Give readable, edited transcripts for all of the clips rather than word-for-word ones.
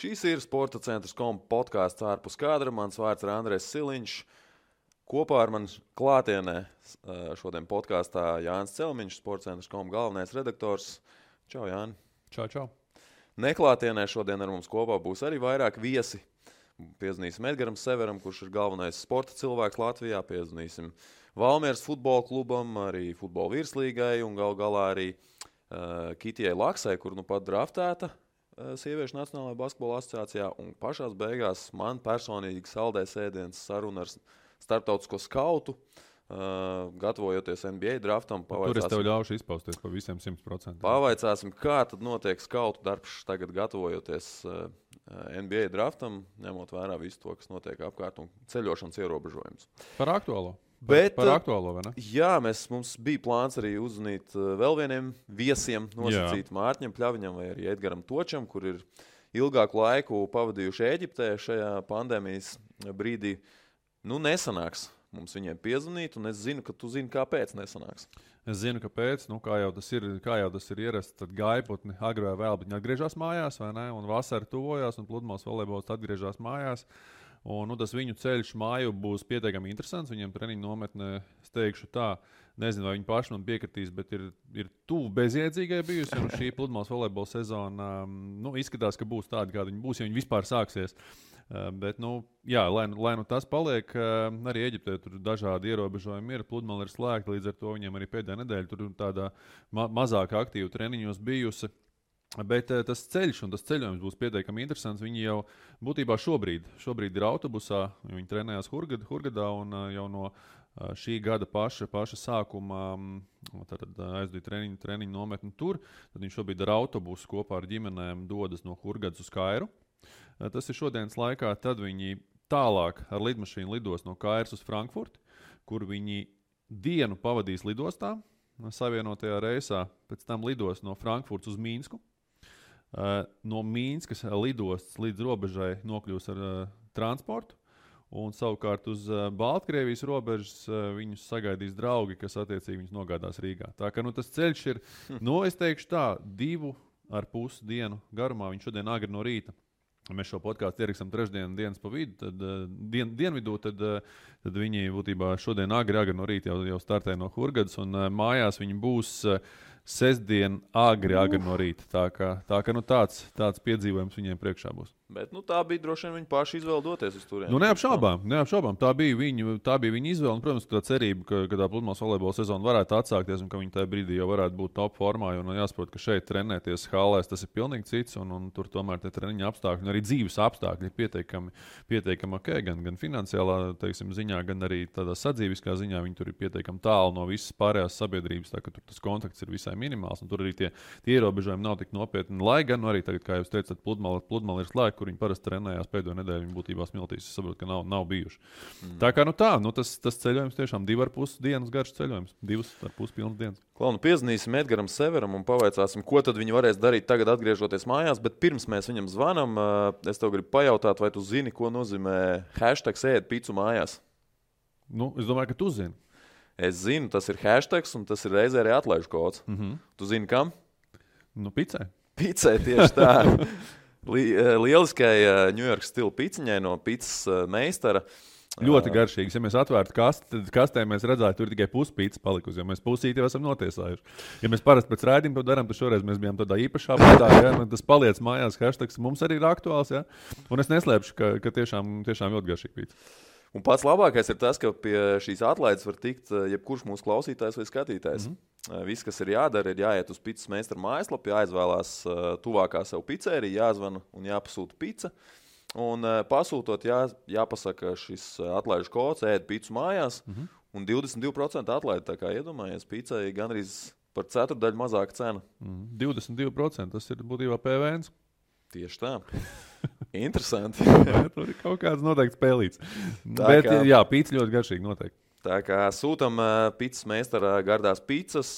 Šīs ir Sporta centrs.com podkāsts ārpus kadra. Mans vārds ir Andrejs Siliņš. Kopā ar mani klātienē šodien podkāstā Jānis Celmiņš, Sporta centrs.com galvenais redaktors. Čau, Jāni. Čau. Neklātienē šodien ar mums kopā būs arī vairāk viesi. Piezvanīsim Edgaram Severam, kurš ir galvenais sporta cilvēks Latvijā. Piezvanīsim Valmieras futbola klubam, arī futbola virslīgai un galā arī Kitijai Laksai, kur nu pat draftēta Sieviešu Nacionālajā basketbola asociācijā. Un pašās beigās man personīgi saldēs ēdienas saruna ar starptautisko skautu, gatavojoties NBA draftam. Tur es tev ļaušu izpausties pa visiem 100%. Pavaicāsim, kā tad notiek skautu darbs tagad gatavojoties NBA draftam, ņemot vērā visu to, kas notiek apkārt un ceļošanas ierobežojums. Par aktuālo. Par aktuālo, vai ne? Jā, mums bija plāns arī uzzvanīt vēl vieniem viesiem, nosacīt Mārķim Pļaviņam vai arī Edgaram Točam, kur ir ilgāku laiku pavadījuši Ēģiptē šajā pandēmijas brīdī. Nu, nesanāks mums viņiem piezvanīt, un es zinu, ka tu zini, kāpēc nesanāks. Es zinu, kāpēc. Nu, kā jau tas ir ierasts, tad gaiputni agri vai vēl, bet viņi atgriežas mājās, vai ne? Un vasara tuvojās, un pludmales volejbols atgriežas mājās. Un, tas viņu ceļš māju būs pietiekami interesants. Viņiem treniņu nometnē, es teikšu tā, nezinu, vai viņi paši man piekritīs, bet ir tuvu bezjēdzīgai bijusi. Un šī pludmales volejbola sezona izskatās, ka būs tāda, kāda viņa būs, ja viņa vispār sāksies. Bet, jā, lai tas paliek, arī Eģiptē tur dažādi ierobežojumi ir. Pludmale ir slēgta, līdz ar to viņiem arī pēdējā nedēļa tur tādā mazāk aktīvu treniņos bijusi. Bet tas ceļš un tas ceļojums būs pietiekami interesants. Viņi jau būtībā šobrīd ir autobusā, viņi trenējās Hurgadā un jau no šī gada paša sākuma aizdīja treniņu nometni tur. Tad viņi šobrīd ar autobusu kopā ar ģimenēm dodas no Hurgadas uz Kairu. Tas ir šodienas laikā, tad viņi tālāk ar lidmašīnu lidos no Kairas uz Frankfurti, kur viņi dienu pavadīs lidostā, savienotajā reisā, pēc tam lidos no Frankfurtas uz Mīnsku. No Mīnskas lidostas līdz robežai nokļūs ar transportu, un savukārt uz Baltkrievijas robežas viņus sagaidīs draugi, kas attiecīgi viņus nogādās Rīgā. Tā ka tas ceļš ir, es teikšu tā, 2,5 dienu garumā, viņš šodien agri no rīta. Mēs šo podkāstu ierakstam trešdienas pa vidu, tad dienvidū, tad viņi būtībā šodien agri no rīta jau startē no Hurgadas, un mājās viņi būs sestdien agri no rīta. Tā kā tāds piedzīvojums viņiem priekšā būs. Bet tā bija droši vien viņi paši izvēle doties uz turieni. Neapšaubām. Tā bija viņa izvēle. Un, protams, ka tā cerība, ka tā pludmales volejbola sezona varētu atsākties un ka viņi tajā brīdī jau varētu būt top formā. Un jāsaprot, ka šeit trenēties hallēs tas ir pilnīgi cits. Un tur tomēr tie treniņa apstākļi un arī dzīves apstākļi ir pietiekami ok. Gan finansiālā ziņā, gan arī tādā sadzīviskā ziņā. Viņi tur ir pietiekami tālu no visas pārējās sabiedrības. Tā ka tur tas kontakts ir visai minimāls. Un tur arī tie ierobežojumi nav tik nopietni. Lai gan arī tagad, kā jūs teicat, pludmale ir slēgta, kur viņi parasti trenējās pēdējo nedēļu, viņi būtībā smiltīs. Es saprotu, ka nav bijuši. Tā kā tas ceļojums tiešām 2,5 dienas garš ceļojums. 2,5 pilnas dienas. Piezvanīsim Edgaram Severam un pavaicāsim, ko tad viņi varēs darīt tagad atgriežoties mājās, bet pirms mēs viņam zvanam, es tev gribu pajautāt, vai tu zini, ko nozīmē hashtags ēd picu mājās? Es domāju, ka tu zini. Es zinu, tas ir hashtags un tas ir reizē arī atlaižu kods. Tu zini, kam? Picai. Picai, tieši tā. Lieliskai ņujorkas stila piciņai no picas meistara. Ļoti garšīgs. Ja mēs atvērtu kastē, mēs redzētu, tur tikai puspīcis palikusi, jo mēs pusīti jau esam notiesājuši. Ja mēs parasti pēc raidījuma to darām, tad šoreiz mēs bijām tādā īpašā veidā, tas paliec mājās, hashtags mums arī ir aktuāls, ja? Un es neslēpšu, ka tiešām ļoti garšīgi pīcis. Un pats labākais ir tas, ka pie šīs atlaides var tikt jebkurš mūsu klausītājs vai skatītājs. Viss, kas ir jādara, ir jāiet uz picas meistara mājaslapu, jāizvēlās tuvākā sev picērija, jāzvana un jāpasūta pica. Un pasūtot jāpasaka šis atlaižu kods, ēd picu mājās, un 22% atlaide, tā kā iedomājies, picai gandrīz par ceturdaļu mazāka cena. 22%, tas ir būtībā PVNs. Tieši tā. Interesanti. Tur ir kaut kāds noteikti spēlīts. Bet jā, pīcis ļoti garšīgi noteikti. Tā kā sūtam picas meistara gardās picas,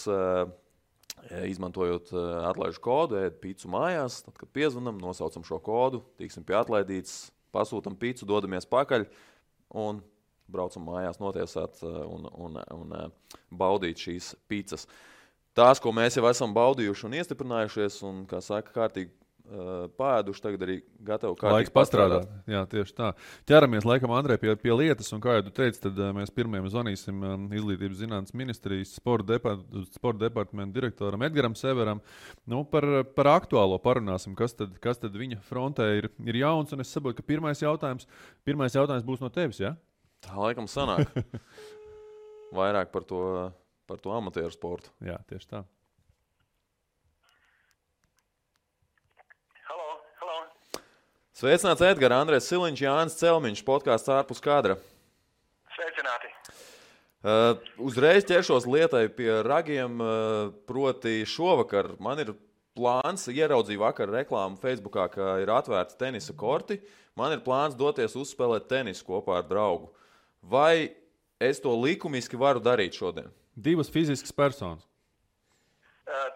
izmantojot atlaižu kodu, ēd picu mājās. Tad, kad piezvanam, nosaucam šo kodu, tiksim pie atlaidītes, pasūtam picu, dodamies pakaļ un braucam mājās notiesāt un baudīt šīs picas. Tās, ko mēs jau esam baudījuši un iestiprinājušies un, kā saka, kārtīgi pāēduši, tagad arī gatavi Laiks pastrādāt. Jā, tieši tā. Ķeramies laikam, Andrej, pie lietas, un kā jau tu teici, tad mēs pirmajam zvanīsim Izglītības zinātnes ministrijas sporta departamenta direktoram Edgaram Severam. Nu, par aktuālo parunāsim, kas tad viņa frontē ir jauns, un es saprotu, ka pirmais jautājums būs no tevis, ja? Tā laikam sanāk. Vairāk par to amatieru sportu. Jā, tieši tā. Sveicināts Edgars, Andrejs Siliņš, Jānis Celmiņš, podkāsts ārpus kadra. Sveicināti. Uzreiz ķeršos lietai pie ragiem, proti šovakar man ir plāns, ieraudzīju vakar reklāmu Facebookā, ka ir atvērti tenisa korti. Man ir plāns doties uzspēlēt tenisu kopā ar draugu. Vai es to likumiski varu darīt šodien? Divas fiziskas personas.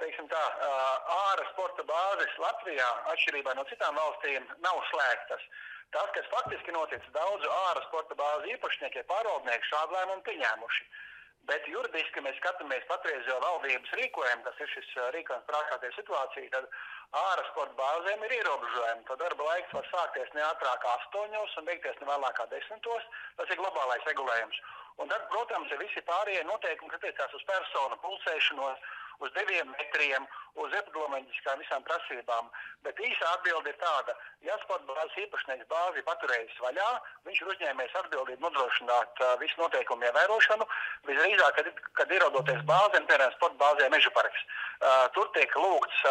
Teiksim tā, āra sporta bāzes Latvijā, atšķirībā no citām valstīm, nav slēgtas. Tas, kas faktiski noticis, daudzu āra sporta bāzu īpašnieki, pārvaldnieki šādu lēmumu pieņēmuši. Bet juridiski mēs skatāmies patreizējo valdības rīkojumu, kas ir šis rīkojums prākātie situācija, tad āra sporta bāzēm ir ierobežojumi. Tad darba laiks var sākties ne ātrāk 8 un beigties ne vēlāk 10. Tas ir globālais regulējums. Un tad, protams, ir visi pārējie noteikumi, kas attiecās uz personu pulsēšanos, uz 2 metriem, uz epidemioloģiskām visām prasībām. Bet īsa atbilde ir tāda, ja sporta bāzes īpašnieks bāzi paturējis vaļā, viņš ir uzņēmies atbildību nodrošināt visu noteikumu ievērošanu, visdrīzāk, kad ierodoties bāzēm, piemēram, sporta bāzē Meža parks. Tur tiek lūgts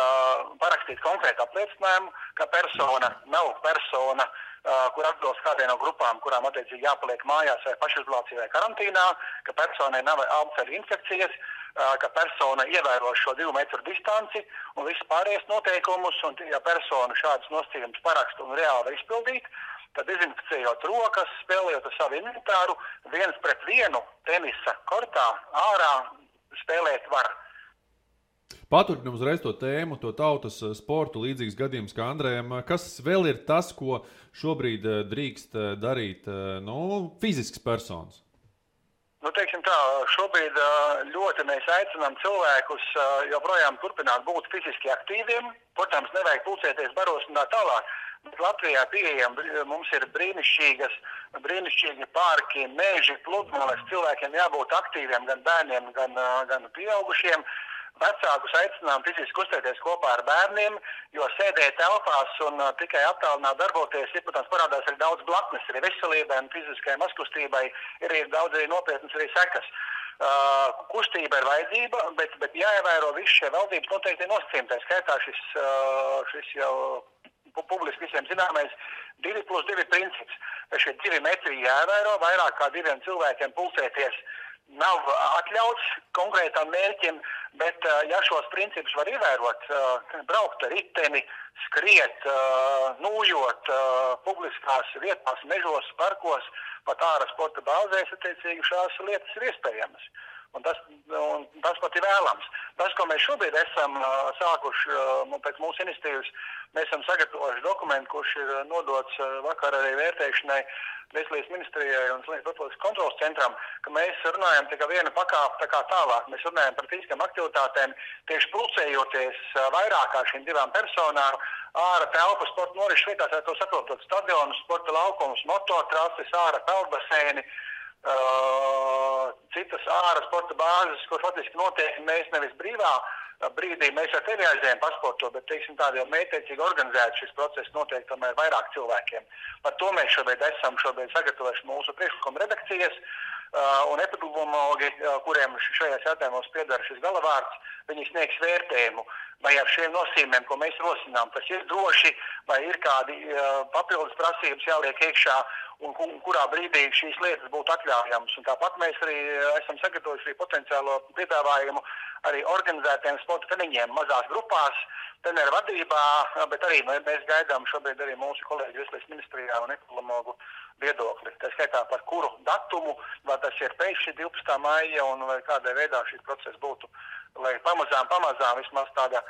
parakstīt konkrētu apliecinājumu, ka persona nav persona, kur atbilst kādai no grupām, kurām attiecīgi jāpaliek mājās vai pašizolācijā vai karantīnā, ka personai nav alceļu infekcijas, ka persona ievēro šo 2 metru distanci un visu pārējais noteikumus, un ja persona šādas nosacījumus paraksta un reāli var izpildīt, tad dezinficējot rokas, spēlējot ar savu inventāru, 1-pret-1 tenisa kortā ārā spēlēt var. Paturpinam uzreiz to tēmu, to tautas sportu, līdzīgs gadījums kā Andrejam. Kas vēl ir tas, ko šobrīd drīkst darīt fiziskas personas? Teiksim tā, šobrīd ļoti mēs aicinām cilvēkus joprojām turpināt būt fiziski aktīviem. Protams, nevajag pulcēties baros un tā tālāk. Bet Latvijā mums ir brīnišķīgi parki, meži, pludmales. Cilvēkiem jābūt aktīviem, gan bērniem, gan pieaugušiem. Vecākus aicinām fiziski kustēties kopā ar bērniem, jo sēdēt telpās un tikai attālināt darboties, protams, parādās arī daudz blaknes, arī veselībai un fiziskajai mazkustībai ir daudz arī nopietnas arī sekas. Kustība ir vajadzība, bet jāievēro visi šie valdības noteikti nosacījumi. Tā skaitā šis jau publiski visiem zināmais 2+2 princips. Šie 2 metri jāievēro, vairāk kā 2 cilvēkiem pulcēties nav atļauts konkrētam mērķim, bet ja šos principus var ievērot, braukt ar riteni, skriet, nūjot publiskās vietās, mežos, parkos, pat āra sporta bāzēs, attiecīgi šās lietas ir iespējamas. Un tas pat ir vēlams. Tas, ko mēs šobrīd esam sākuši pēc mūsu iniciatīvas, mēs esam sagatavojuši dokumentu, kurš ir nodots vakar arī vērtēšanai Veselības ministrijai un Profilakses kontroles centram, ka mēs runājam tikai viena pakāpe tā kā tālāk. Mēs runājam par fiziskām aktivitātēm, tieši pulcējoties vairāk kā šīm 2 personām, āra telpa sporta norises vietās, to saprotot stadionus, sporta laukumus, mototrases, āra peldbaseini, citas āra sporta bāzes, kur faktiski notiek mēs nevis brīvā brīdī, mēs ar tevi aizējām pasportot, bet, teiksim, tādi jau mētiecīgi organizēti šis process notiek tomēr vairāk cilvēkiem. Par to mēs esam sagatavojuši mūsu priekšlikuma redakcijas, un epidemiologi, kuriem šajās jautājumos piedara šis galavārds, viņi sniegs vērtējumu, vai ar šiem nosīmēm, ko mēs rosinām, tas ir droši, vai ir kādi papildus prasības jāliek iekšā, un kurā brīdī šīs lietas būtu atļaujamas. Un tāpat mēs arī esam sagatavojuši potenciālo piedāvājumu arī organizētiem sporta treniņiem mazās grupās, treneru vadībā, bet arī mēs gaidām šobrīd arī mūsu kolēģi Veselības ministrijā un epidemiologu viedokli. Tā skaitā par kuru datumu, vai tas ir pēc 12. maija un vai kādā veidā šis process būtu, lai pamazām vismaz tāda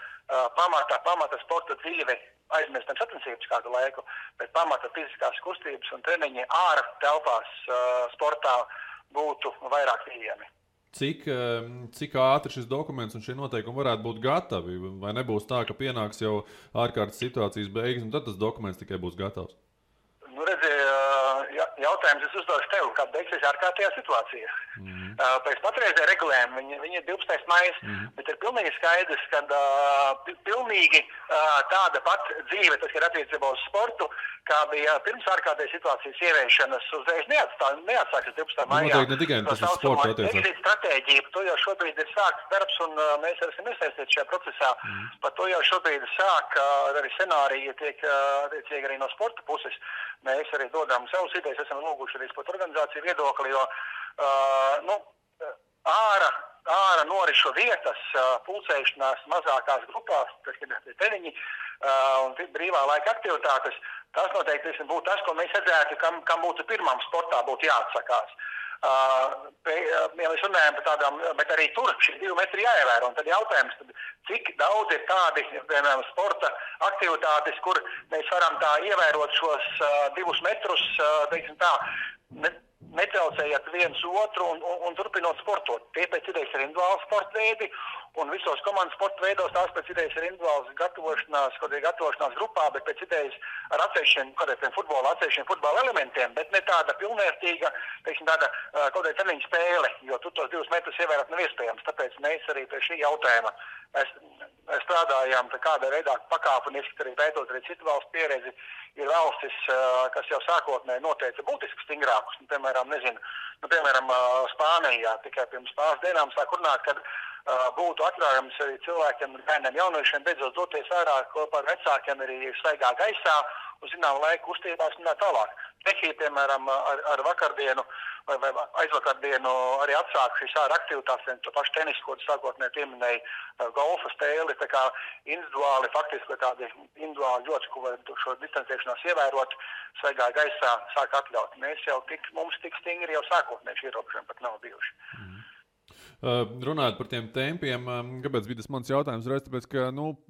pamata sporta dzīve aizmirstam sacensības kādu laiku, bet pamata fiziskās kustības un treniņi āra telpās sportā būtu vairāk pieejami. cik ātri šis dokuments un šie noteikumi varētu būt gatavi? Vai nebūs tā, ka pienāks jau ārkārtas situācijas beigas, un tad tas dokuments tikai būs gatavs? Nu, redzi, jautājums es uzdošu tev, kad beigsies ārkārtējā situācija. Pēc patreizējā regulējuma viņi ir 12. maijs, bet ir pilnīgi skaidrs, ka pilnīgi tāda pat dzīve, tas ir attiecībā uz sportu, kā bija pirms ārkārtējā situācijas ieviešanas, uzreiz neatsākas 12. maijā. Noteikti ne tikai tas uz sportu attiecās. Exit stratēģija, par to jau šobrīd ir sākts darbs, un mēs esam iesaistīti šajā procesā. Par to jau šobrīd sāk arī scenāriji tiek attiecīgi arī no sporta puses. Mēs arī dodam savus idejas, esam lūguši arī sporta organizāciju viedokli, jo ārā norišu vietas, pulcēšanās mazākās grupās, tas ir treniņi un brīvā laika aktivitātes, tas noteikti būtu tas, ko mēs redzētu, kam būtu pirmām sportā būtu jāatsakās. Ja mēs runājam par tādām, bet arī tur šie 2 metri jāievēro, un tad jautājums, cik daudz ir tādi, piemēram, sporta aktivitātes, kur mēs varam tā ievērot šos 2 metrus, teiksim tā, netraucējot viens otru un turpinot sportot. Tie pēc idejas ir individuāli sporta veidi, un visos komandas sporta veidos tās pēc idejas ir individuāls gatavošanās grupā, bet pēc idejas ar atsevišķiem futbola elementiem, bet ne tāda pilnvērtīga, teiksim, tāda kaut kāda treniņa spēle, jo tur tos 2 metrus ievērot nav iespējams. Tāpēc mēs arī pie šī jautājuma strādājām kādā veidā pakāpeniski, arī pētot arī citu valstu pieredzi. Ir valstis, kas jau sākotnēji noteica būtiski stingrākus, piemēram, Spānijā tikai pirms pāris dienām sāk runāt, kad būtu atļaujams arī cilvēkiem, bērniem, jauniešiem beidzot doties ārā kopā ar vecākiem arī svaigā gaisā, uz zinām laiku kustībās un tā tālāk. Čehija, piemēram, ar vakardienu vai aizvakardienu arī atsāk šīs ārā aktivitātes, to pašu tenisu, ko sākotnēji pieminēja, golfa spēli, tā kā individuāli, faktiski tādi individuāli ļoti, ko var šo distancēšanās ievērot, svaigā gaisā sāk atļaut. Mums tik stingri jau sākotnēji ierobežojumi pat nav bijuši. Runājot par tiem tempiem, kāpēc bija tas mans jautājums? Tāpēc, ka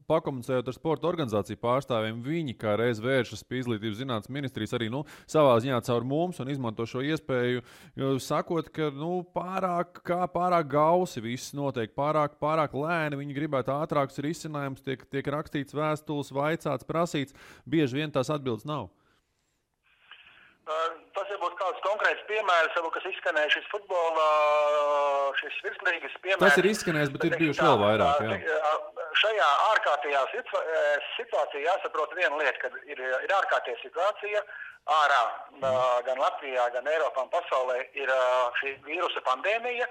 pakomunicējot ar sporta organizāciju pārstāvjiem, viņi kā reiz vēršas pie Izglītības zinātnes ministrijas arī savā ziņā caur mums un izmanto šo iespēju, sakot, ka pārāk gausi viss notiek, pārāk lēni, viņi gribētu ātrākus risinājumus, tiek rakstīts vēstules, vaicāts, prasīts, bieži vien tās atbildes nav. Tas ir būtu kāds konkrēts piemērs, kas izskanēja šis futbola, šis virslīgas piemērs. Tas ir izskanējis, bet ir bijuši vēl vairāk. Jā. Šajā ārkārtējā situācijā jāsaprot viena lieta, ka ir ārkārtējā situācija ārā, gan Latvijā, gan Eiropā un pasaulē ir šī vīrusa pandēmija.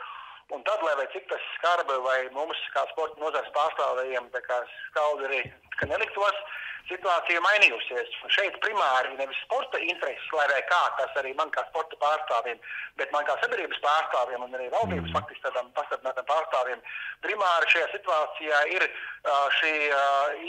Un tad, lai vai cik tas skarbi vai mums kā sporta nozares pārstāvējiem, tā kā skaudi arī, ka neliktos, situācija mainījusies. Šeit primāri nevis sporta intereses, lai vai kā, tas arī man kā sporta pārstāvjiem, bet man kā sabiedrības pārstāvjiem un arī valdības faktiski tādām pastiprinātām pārstāvjiem, primāri šajā situācijā ir šī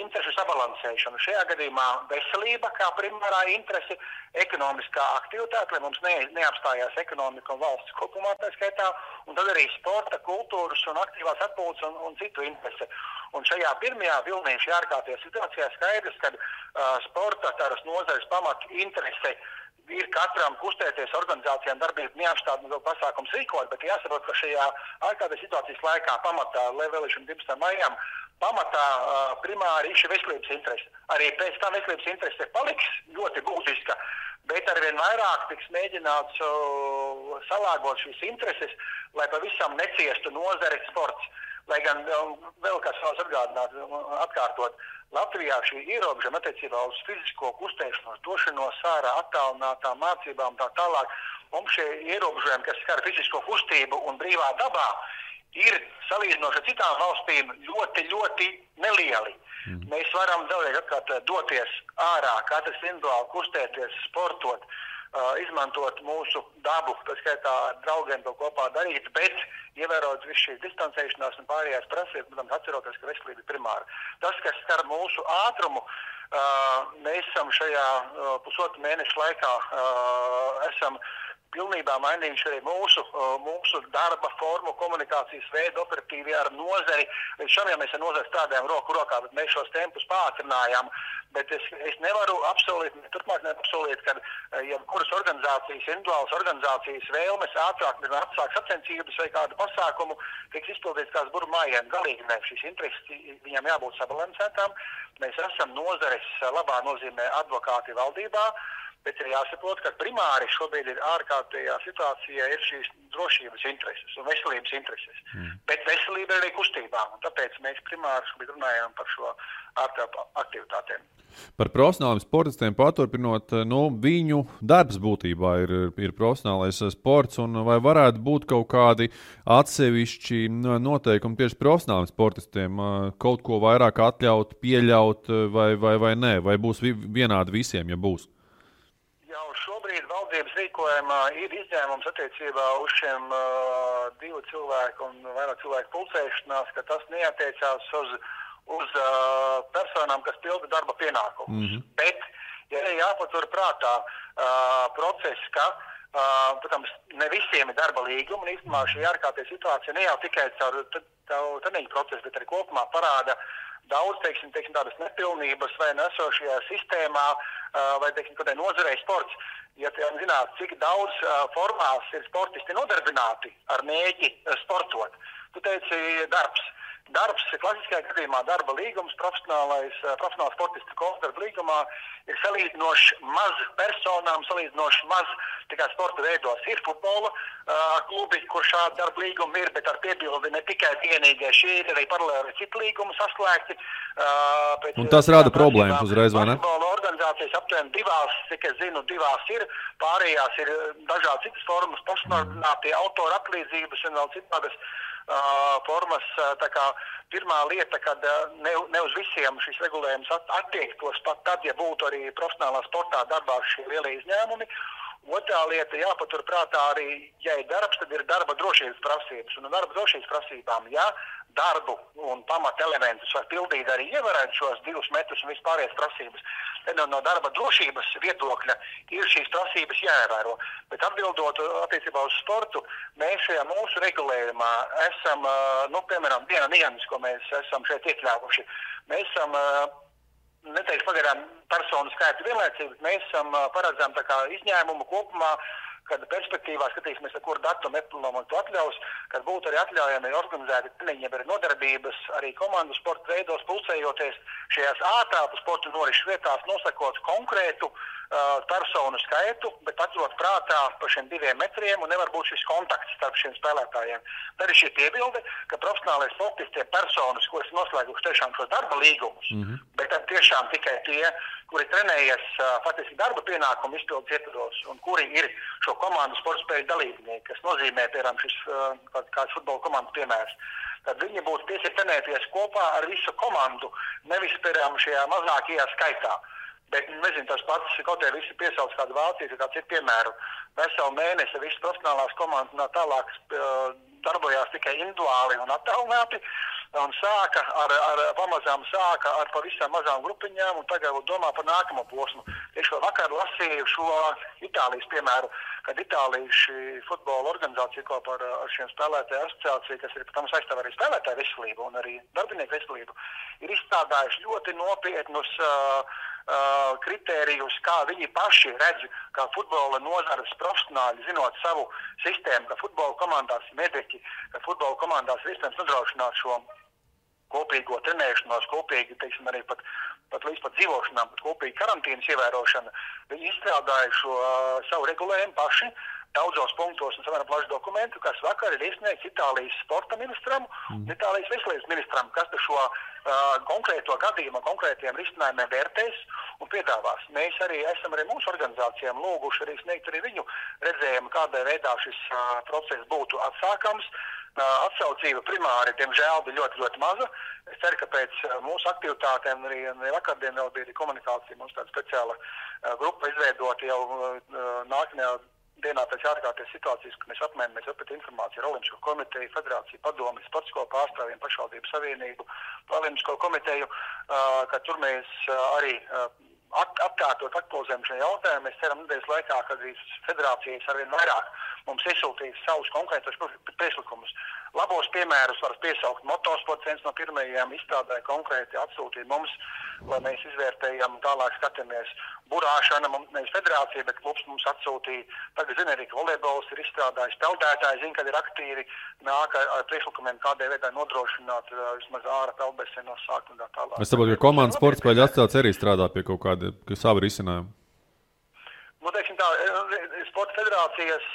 interešu sabalansēšana. Šajā gadījumā veselība kā primārā interese, ekonomiskā aktivitāte, lai mums neapstājās ekonomika un valsts kopumā tā skaitā, un tad arī sporta, kultūras un aktīvās atpūtas un citu interese. Un šajā pirmajā vilnī, šajā ārkārtējā situācijā skaidrs, ka sporta tādas nozares pamat interese ir katram kustēties organizācijām darbību neapstādināt vēl pasākums rīkot, bet jāsaprot, ka šajā ārkārtējā situācijas laikā pamatā, lai vēlēšana 12. maijām, pamatā primāri ir šī veselības interese. Arī pēc tam veselības interese paliks ļoti būtiska, bet arvien vairāk tiks mēģināts salāgot šīs intereses, lai pavisam neciestu nozare sports. Lai gan vēl kāds savas atkārtot, Latvijā šī ierobežojuma attiecībā uz fizisko kustēšanos, došanos ārā, attālinātām mācībām tā tālāk, mums šie ierobežojumi, kas skar fizisko kustību un brīvā dabā, ir salīdzinoši ar citām valstīm ļoti, ļoti nelieli. Mēs varam vēlreiz atkārt doties ārā, katrs individuāli kustēties, sportot, izmantot mūsu dabu, tā skaitā ar draugiem to kopā darīt, bet ievērot visu šīs distancēšanās un pārējās prasības, protams, atceroties, ka veselība ir primāra. Tas, kas skar mūsu ātrumu, mēs esam šajā pusotru mēnešu laikā esam pilnībā mainījuši arī mūsu darba formu, komunikācijas veidu, operatīvi ar nozari. Līdz šam jau mēs ar nozari strādājam roku rokā, bet mēs šos tempus pātrinājām. Bet es nevaru apsolīt, turpmāk nevaru apsolīt, ka jebkuras organizācijas, individuālas organizācijas vēlmes ātrāk atsāk sacensības vai kādu pasākumu tiks izpildīts kāds buru mājiem. Galīgi ne, šīs intereses viņam jābūt sabalansētām. Mēs esam nozares labā nozīmē advokāti valdībā, bet ir jāsaprot, ka primāri šobrīd ir ārkārtējā situācijā ir šīs drošības intereses un veselības intereses. Bet veselība ir arī kustībā, un tāpēc mēs primāri šobrīd runājam par šo aktivitātēm. Par profesionāliem sportistiem paturpinot, viņu darbs būtībā ir profesionālais sports, un vai varētu būt kaut kādi atsevišķi noteikumi tieši profesionāliem sportistiem, kaut ko vairāk atļaut, pieļaut vai nē, vai būs vienādi visiem, ja būs? Jau šobrīd valdības rīkojumā ir izņēmums attiecībā uz šiem 2 cilvēku un vairāk cilvēku pulcēšanās, ka tas neatiecās uz personām, kas pilda darba pienākumus. Bet, ja jāpatur prātā process, ka, protams, ne visiem ir darba līguma, un īstenībā šī ārkārtējā situācija ne jau tikai caur treniņu procesu, bet arī kopumā parāda daudz, teiksim, tādas nepilnības vai nesošajā sistēmā, vai, teiksim, kādai nozarei sports. Ja zināt, cik daudz formās ir sportisti nodarbināti ar mēģi sportot, tu teici darbs. Darbs, klasiskajā gadījumā darba līgums, profesionāls sportistu darba līgumā ir salīdzinoši maz personām, salīdzinoši maz tikai sporta veidos. Ir futbola klubi, kur šādi darba līgumi ir, bet ar piebildi ne tikai vienīgai. Šī ir arī paralēli citu līgumu saslēgti. Un tas rada problēmas uzreiz, vai ne? Futbola organizācijas aptuveni 2, cik es zinu, 2 ir, pārējās ir dažādi citas formas, pašnodarbinātie autora atlīdzības un vēl citādas formas. Tā kā pirmā lieta, kad ne uz visiem šis regulējums attiektos pat tad, ja būtu arī profesionālā sportā darbā šie lielie izņēmumi. Otrā lieta jāpatur prātā arī, ja ir darbs, tad ir darba drošības prasības. Un darba drošības prasībām, ja darbu un pamata elementus var pildīt arī ievērēt šos 2 metrus un vispārējās prasības, tad no darba drošības viedokļa ir šīs prasības jāievēro. Bet atbildot attiecībā uz sportu, mēs šajā mūsu regulējumā esam, piemēram, viena nianses, ko mēs esam šeit iekļāvuši. Mēs esam, neteikšu pagaidām personu skaitu vienlaicīgi, mēs esam paredzam tā kā izņēmumu kopumā, kad perspektīvā skatīsimies, ar kuru datumu to atļaus, kad būtu arī atļaujami organizēti treniņi, arī nodarbības, arī komandu sporta veidos pulcējoties šajās ātrāku sporta norišu vietās, nosakot konkrētu personu skaitu, bet atrot prātā par šiem 2 metriem un nevar būt šis kontakts starp šiem spēlētājiem. Tad ir šī piebilde, ka profesionālais sportisti ir personas, kuras noslēguši tiešām šos darba līgumus, bet tad tiešām tikai tie, kuri trenējas faktiski darba pienākumu izpildes ietvaros un kuri ir šo komandu sporta spēļu dalībnieki, kas nozīmē, piemēram, šis kāds futbola komandas piemērs. Tad viņi būtu tiesīgi trenēties kopā ar visu komandu, nevis, piemēram, šajā mazākajā skaitā. Bet, nezinu, tas pats, kaut arī visi piesauc kādu Vāciju, kāds ir piemēru. Veselu mēnesi visas profesionālās komandas un tālāk darbojās tikai individuāli un attālināti. Un pamazām sāka ar pavisam mazām grupiņām un tagad domā par nākamo posmu. Tieši vakar lasīju šo Itālijas piemēru, kad Itālijas futbola organizācija kopā ar šiem spēlētāju asociāciju, kas ir, protams, aizstāv arī spēlētāju veselību un arī darbinieku veselību, ir izstrādājuši ļoti nopietnus kritērijus, kā viņi paši redz, kā futbola nozares profesionāļi, zinot savu sistēmu, ka futbola komandās ir mediķi, ka futbola komandās ir iespējams nodrošināt šo kopīgo trenēšanos, kopīgi, teiksim, arī pat līdz pat dzīvošanām, pat kopīgi karantīnas ievērošana. Viņi izstrādāja šo savu regulējumu paši, daudzos punktos un samērā plašu dokumentu, kas vakar ir iesniegts Itālijas sporta ministram un Itālijas veselības ministram, kas šo konkrēto gadījumu, konkrētiem risinājumiem vērtēs un piedāvās. Mēs arī esam mūsu organizācijām lūguši arī sniegt arī viņu redzējumu, kādā veidā šis process būtu atsākams. Atsaucība primāri, diemžēl, bija ļoti, ļoti maza. Es ceru, ka pēc mūsu aktivitātēm arī vakardien vēl bija komunikācija, mums tāda speciāla grupa izveidota jau nākamajā dienā pēc ārkārtējas situācijas, kad mēs apmainamies apet informāciju ar Olimpisko komiteju, federāciju, padomi, sporta skolu pārstāvjiem, pašvaldību savienību, Olimpisko komiteju, ka tur mēs arī aktualizējam šo jautājumu. Mēs ceram nedēļas laikā, kad federācijas arvien vairāk mums izsūtīs savus konkrētos priekšlikumus. Labos piemērus var piesaukt. Motosports viens no pirmajiem izstrādāja konkrēti atsūtīja mums, lai mēs izvērtējam, tālāk skatāmies. Burāšana, nevis federācija, bet klubs mums atsūtīja. Tagad zina arī, ka volejbols ir izstrādājis. Peldētāji zina, kad ir aktīvi nāk ar priekšlikumiem, kādai veidai nodrošināt vismaz āra peldbēsienos sākt un tā tālāk. Es saprotu, ka komandas sporta spēļu asociācija arī strādā pie kaut kāda savu risinājumu. Teiksim tā, sporta federācijas,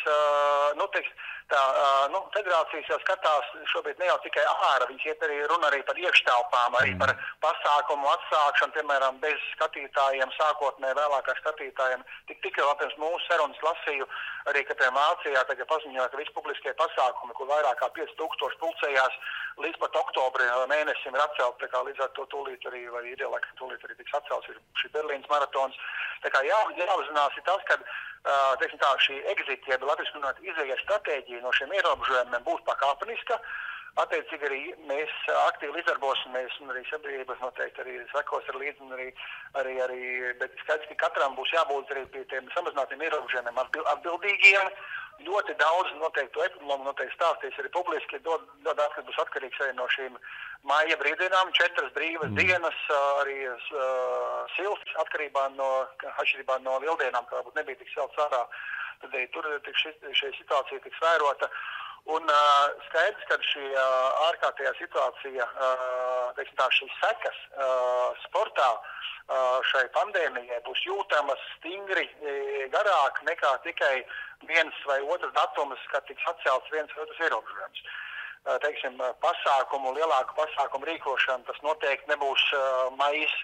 federācijas jau skatās šobrīd ne jau tikai ārā, viņas iet arī runa arī par iekštelpām, arī par pasākumu atsākšanu, piemēram, bez skatītājiem, sākotnē vēlākā skatītājiem. Tikai vēl pirms mūsu sarunas lasīju, arī, ka pie Vācijā tagad paziņoja, ka visi publiskie pasākumi, kur vairāk kā 5000 pulcējās, līdz pat oktobra mēnesim ir atcelt, tā kā līdz ar to tūlīt arī, vai ideālāk tūlīt arī tiks atcelts, ir šī Berlīnas maratons. Tā kā jāuzzinās ir tas, ka šī exit, jeb latviski runāt, izējas stratēģija no šiem ierobežojumiem būs pakāpeniska. Attiecīgi arī mēs aktīvi līdzdarbosimies un arī sabiedrības noteikti arī sekos ar līdzi un arī, bet skaidrs, ka katram būs jābūt arī pie tiem samazinātiem ierobežojumiem atbildīgiem. Ļoti daudz noteikti epidemiologu noteikti stāstīs arī publiski, kas būs atkarīgs arī no šīm māja brīvdienām, 4 brīvas dienas, arī silts atkarībā no lieldienām, kā varbūt nebija tik silts ārā, tad arī tur šī situācija tiks vērota. Un skaidrs, ka šī ārkārtējā situācija, šīs sekas sportā šai pandēmijai būs jūtamas stingri garāk nekā tikai viens vai otrs datums, kad tiks atcelts viens vai otrs ierobežojums. Lielāku pasākumu rīkošana, tas noteikti nebūs maijs.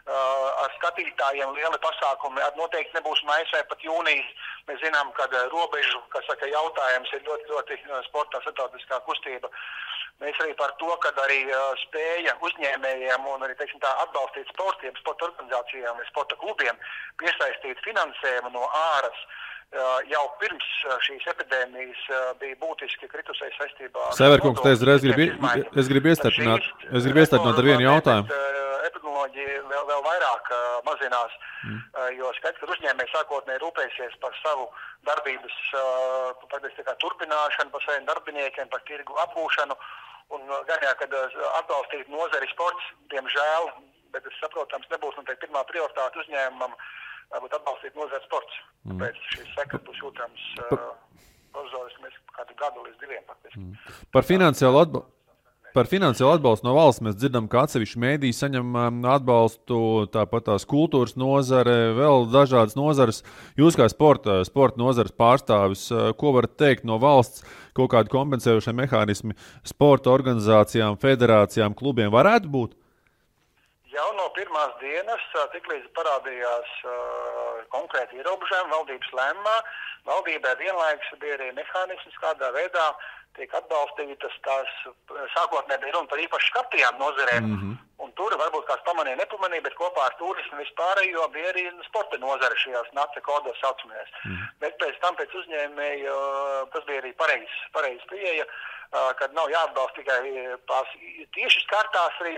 Ar skatītājiem lieli pasākumi noteikti nebūs maijs vai pat jūnijas. Mēs zinām, ka robežu, jautājums ir ļoti, ļoti sportā starptautiskā kustība. Mēs arī par to, ka arī spēja uzņēmējiem un arī atbalstīt sportiem, sporta organizācijām vai sporta klubiem piesaistīt finansējumu no āras. Jau pirms šīs epidēmijas bija būtiski kritusēji saistībā. Severkungs, es gribu iestarpināt ar vienu jautājumu. Epidemioloģija vēl vairāk mazinās, jo skaidrs, ka uzņēmēji sākotnēji rūpēsies par savu darbības turpināšanu, par saviem darbiniekiem, par tirgu apgūšanu un gaņā, kad atbalstīt nozari sports, diemžēl, bet es saprotams, nebūs noteikti pirmā prioritāte uzņēmumam varbūt atbalstīt nozari sports. Tāpēc šīs sekas būs jūtams provizoriski mēs kādu gadu līdz 2 faktiski. Par finansiālu atbalstu no valsts mēs dzirdam, ka atsevišķi mēdīji saņem atbalstu, tāpat tās kultūras nozare, vēl dažādas nozares. Jūs kā sporta nozares pārstāvis, ko varat teikt no valsts, kaut kādi kompensējošie mehānismi sporta organizācijām, federācijām, klubiem varētu būt? Jau no pirmās dienas, tiklīdz parādījās konkrēti ierobežojumi valdības lēmumā, valdībai vienlaikus bija arī mehānisms, kādā veidā tiek atbalstītas tās sākotnēji bija runa par īpaši skartajām nozarēm. Un tur varbūt kāds pamanīja, nepamanīja, bet kopā ar turismu vispārējo bija arī sporta nozare šajās NACE kodos saucamajās. Bet pēc uzņēmēju, tas bija arī pareizs pieeja, kad nav jāatbalsta tikai tās tieši skartās, arī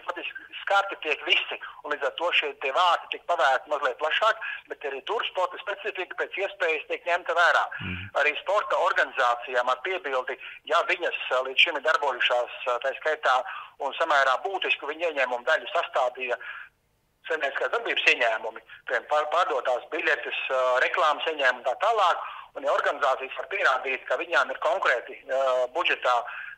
skarti tiek visi, un līdz ar to šie tie vārti tiek pavērti mazliet plašāk, bet arī tur sporta specifika pēc iespējas tiek ņemta vērā. Arī sporta organizācijām ar piebildi, ja viņas līdz šim ir darbojušās, tā skaitā, un samērā būtisku viņu ieņēmumu daļu sastādīja saimnieciskās darbības ieņēmumi, pārdotās biļetes, reklāmas ieņēmumi tā tālāk, un ja organizācijas var pierādīt, ka viņām ir konkrēti budžetā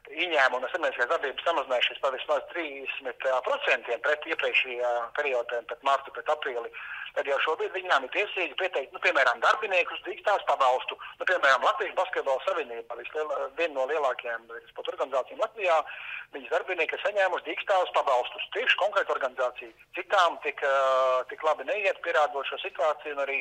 ieņēmumi no saimnieciskās darbības samazinājušies par vismaz 30% pret iepriekšējā periodā, pret martu, pret aprīli, tad jau šobrīd viņām ir tiesīgi pieteikt, piemēram, darbiniekus drīkstās pabalstu. Piemēram, Latvijas basketbola savienība, viena no lielākajām sporta organizācijām Latvijā, viņas darbinieki saņēmuši drīkstās pabalstus. Tieši konkrēta organizācija. Citām tik labi neiet, pierādot šo situāciju, un arī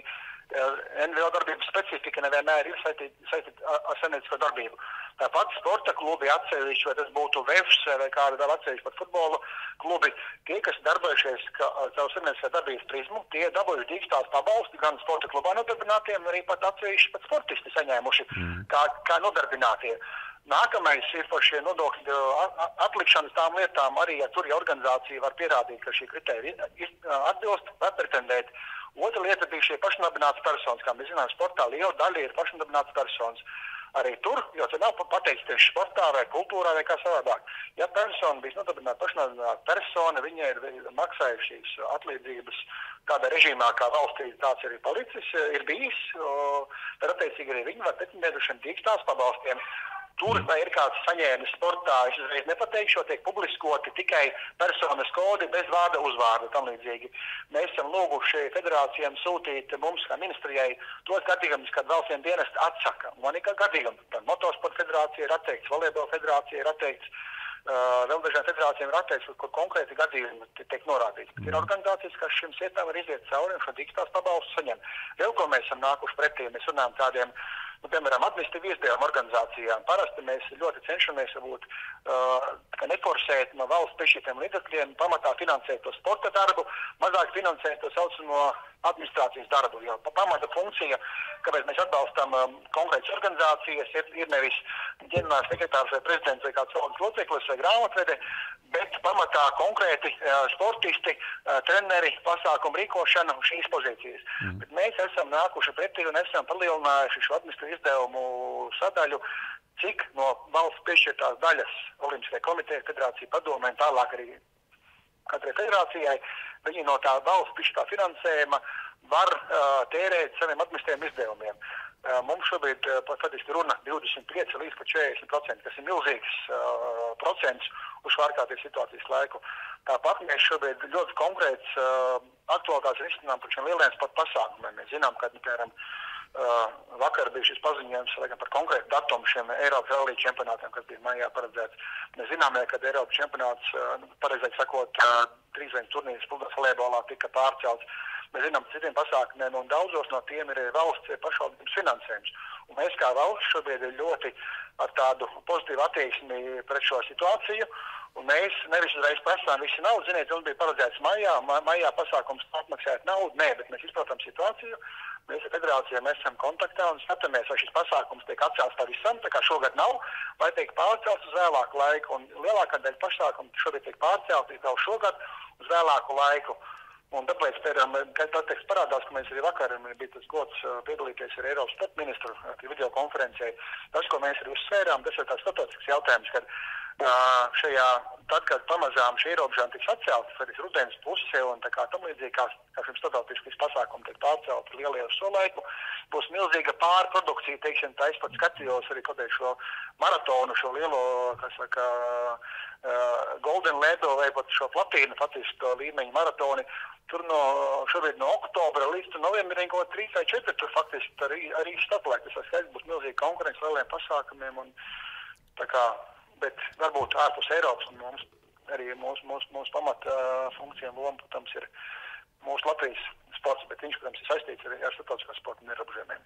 NVO darbības specifika nevienmēr ir saistīta ar saimniecisko darbību. Tāpat sporta klubi atsevišķi, vai tas būtu VEFs vai kāda vēl atsevišķi pat futbola klubi, tie, kas darbojušies savu saimnieciskā darbības prizmu, tie dabūjuši dīkstās pabalsti gan sporta klubā nodarbinātiem, arī pat atsevišķi pat sportisti saņēmuši kā nodarbinātie. Nākamais ir par šie nodokļu atlikšanas tām lietām. Arī, ja tur organizācija var pierādīt, ka šī kritērija atbilst, var pretendēt. Otra lieta bija šie pašnodarbinātas personas. Kā mēs zinām, sportā liela daļa ir pašnodarbinātas personas. Arī tur, jo tas nav pateikts tieši sportā vai kultūrā vai kā savādāk. Ja persona bija pašnodarbināta persona, viņai ir maksājušas atlīdzības kādā režīmā, kā valstī tāds arī palicis, ir bijis, tad attiecīgi arī viņi var pretendēt uz šiem dīkstās pabalstiem. Tur vai ir kāds saņēmis sportā, es uzreiz nepateikšu, tiek publiskoti tikai personas kodi bez vārda uzvārda tam līdzīgi. Mēs esam lūguši federācijām sūtīt mums kā ministrijai tos gadījumus, kad valsts dienesti atsaka. Man ir gadījumi, tad motosporta federācija ir atteikts, volejbola federācija ir atteikts, vēl dažām federācijām ir atteikts, kur konkrēti gadījumi tiek norādīts. Ir organizācijas, kas šim sietām var iziet cauri un šo dīkstās pabalstu saņem. Vēl ko mēs esam nākuši pretī, mēs runājam tādiem, piemēram, administratīvu izdevumu organizācijām. Parasti mēs ļoti cenšamies neforsēt no valsts piešķirtiem līdzekļiem, pamatā finansēt to sporta darbu, mazāk finansēt to saucamo administrācijas darbu. Jo pamata funkcija, kāpēc mēs atbalstam konkrētas organizācijas, ir nevis ģenerāls sekretārs vai prezidents vai kāds valdes loceklis vai grāmatvede, bet pamatā konkrēti sportisti, treneri, pasākumu rīkošana un šīs pozīcijas. Bet mēs esam nākuši pretī un esam palielinājuši šo administratīvu izdevumu sadaļu, cik no valsts piešķirtās daļas Olimpiskajai komitejai, federācija padomē un tālāk arī katrai federācijai, viņi no tā valsts piešķirtā finansējuma var tērēt saviem administratīviem izdevumiem. Mums šobrīd faktiski runa 25 līdz 40%, kas ir milzīgs procents uz ārkārtības situācijas laiku. Tāpat mēs šobrīd ļoti konkrēts aktualitātes risinām par šiem lieliem sporta pasākumiem. Mēs zinām, ka, piemēram, vakar bija šis paziņojums par konkrētu datumu šiem Eiropas rallija čempionātiem, kas bija maijā paredzēts. Mēs zinām, ka Eiropas čempionāts, pareizāk sakot, 3 turnīrs volejbolā tika pārcelts. Mēs zinām, citiem pasākumiem, un daudzos no tiem ir valsts pašvaldības finansējums. Un mēs kā valsts šobrīd ir ļoti ar tādu pozitīvu attieksmi pret šo situāciju. Un mēs nevis uzreiz prasām visu naudu. Ziniet, mums bija paredzēts maijā pasākums atmaksāt naudu. Nē, bet mēs izprotam situāciju. Mēs ar federācijām esam kontaktā un skatāmies, vai šis pasākums tiek atcelts pavisam, tā kā šogad nav, vai tiek pārcelts uz vēlāku laiku. Un lielākā daļa pasākumu šobrīd tiek pārcelti jau šogad uz vēlāku laiku. Un tāpēc, kad teksts parādās, ka mēs arī vakar bija tas gods piedalīties ar Eiropas sporta ministru video konferencē, tas, ko mēs arī uzsvērām, tas ir tāds starptautisks jautājums, kad tad, kad pamazām šī ierobežojuma tiks atceltas, arī rudens pusē un tā kā tam līdzīgi, kā šim starptautiskas pasākumi tiek pārcelti lielie uz šo laiku, būs milzīga pārprodukcija, teiksim, tā es pat skatījos arī kaut šo maratonu, šo lielo, kas saka, Golden Ledo vai pat šo platīnu, faktiski līmeņu maratoni. Tur šobrīd no oktobra līdz novembrim kaut 3 vai 4, tur faktiski arī startlaik. Tas skaidrs būs milzīgi konkurence lieliem pasākumiem, un tā kā, bet varbūt ārpus Eiropas, un mums arī mūsu pamata funkcija un loma, protams, ir mūsu Latvijas sports, bet viņš, protams, ir saistīts arī ar starptautiskā sporta un ierobežojumiem.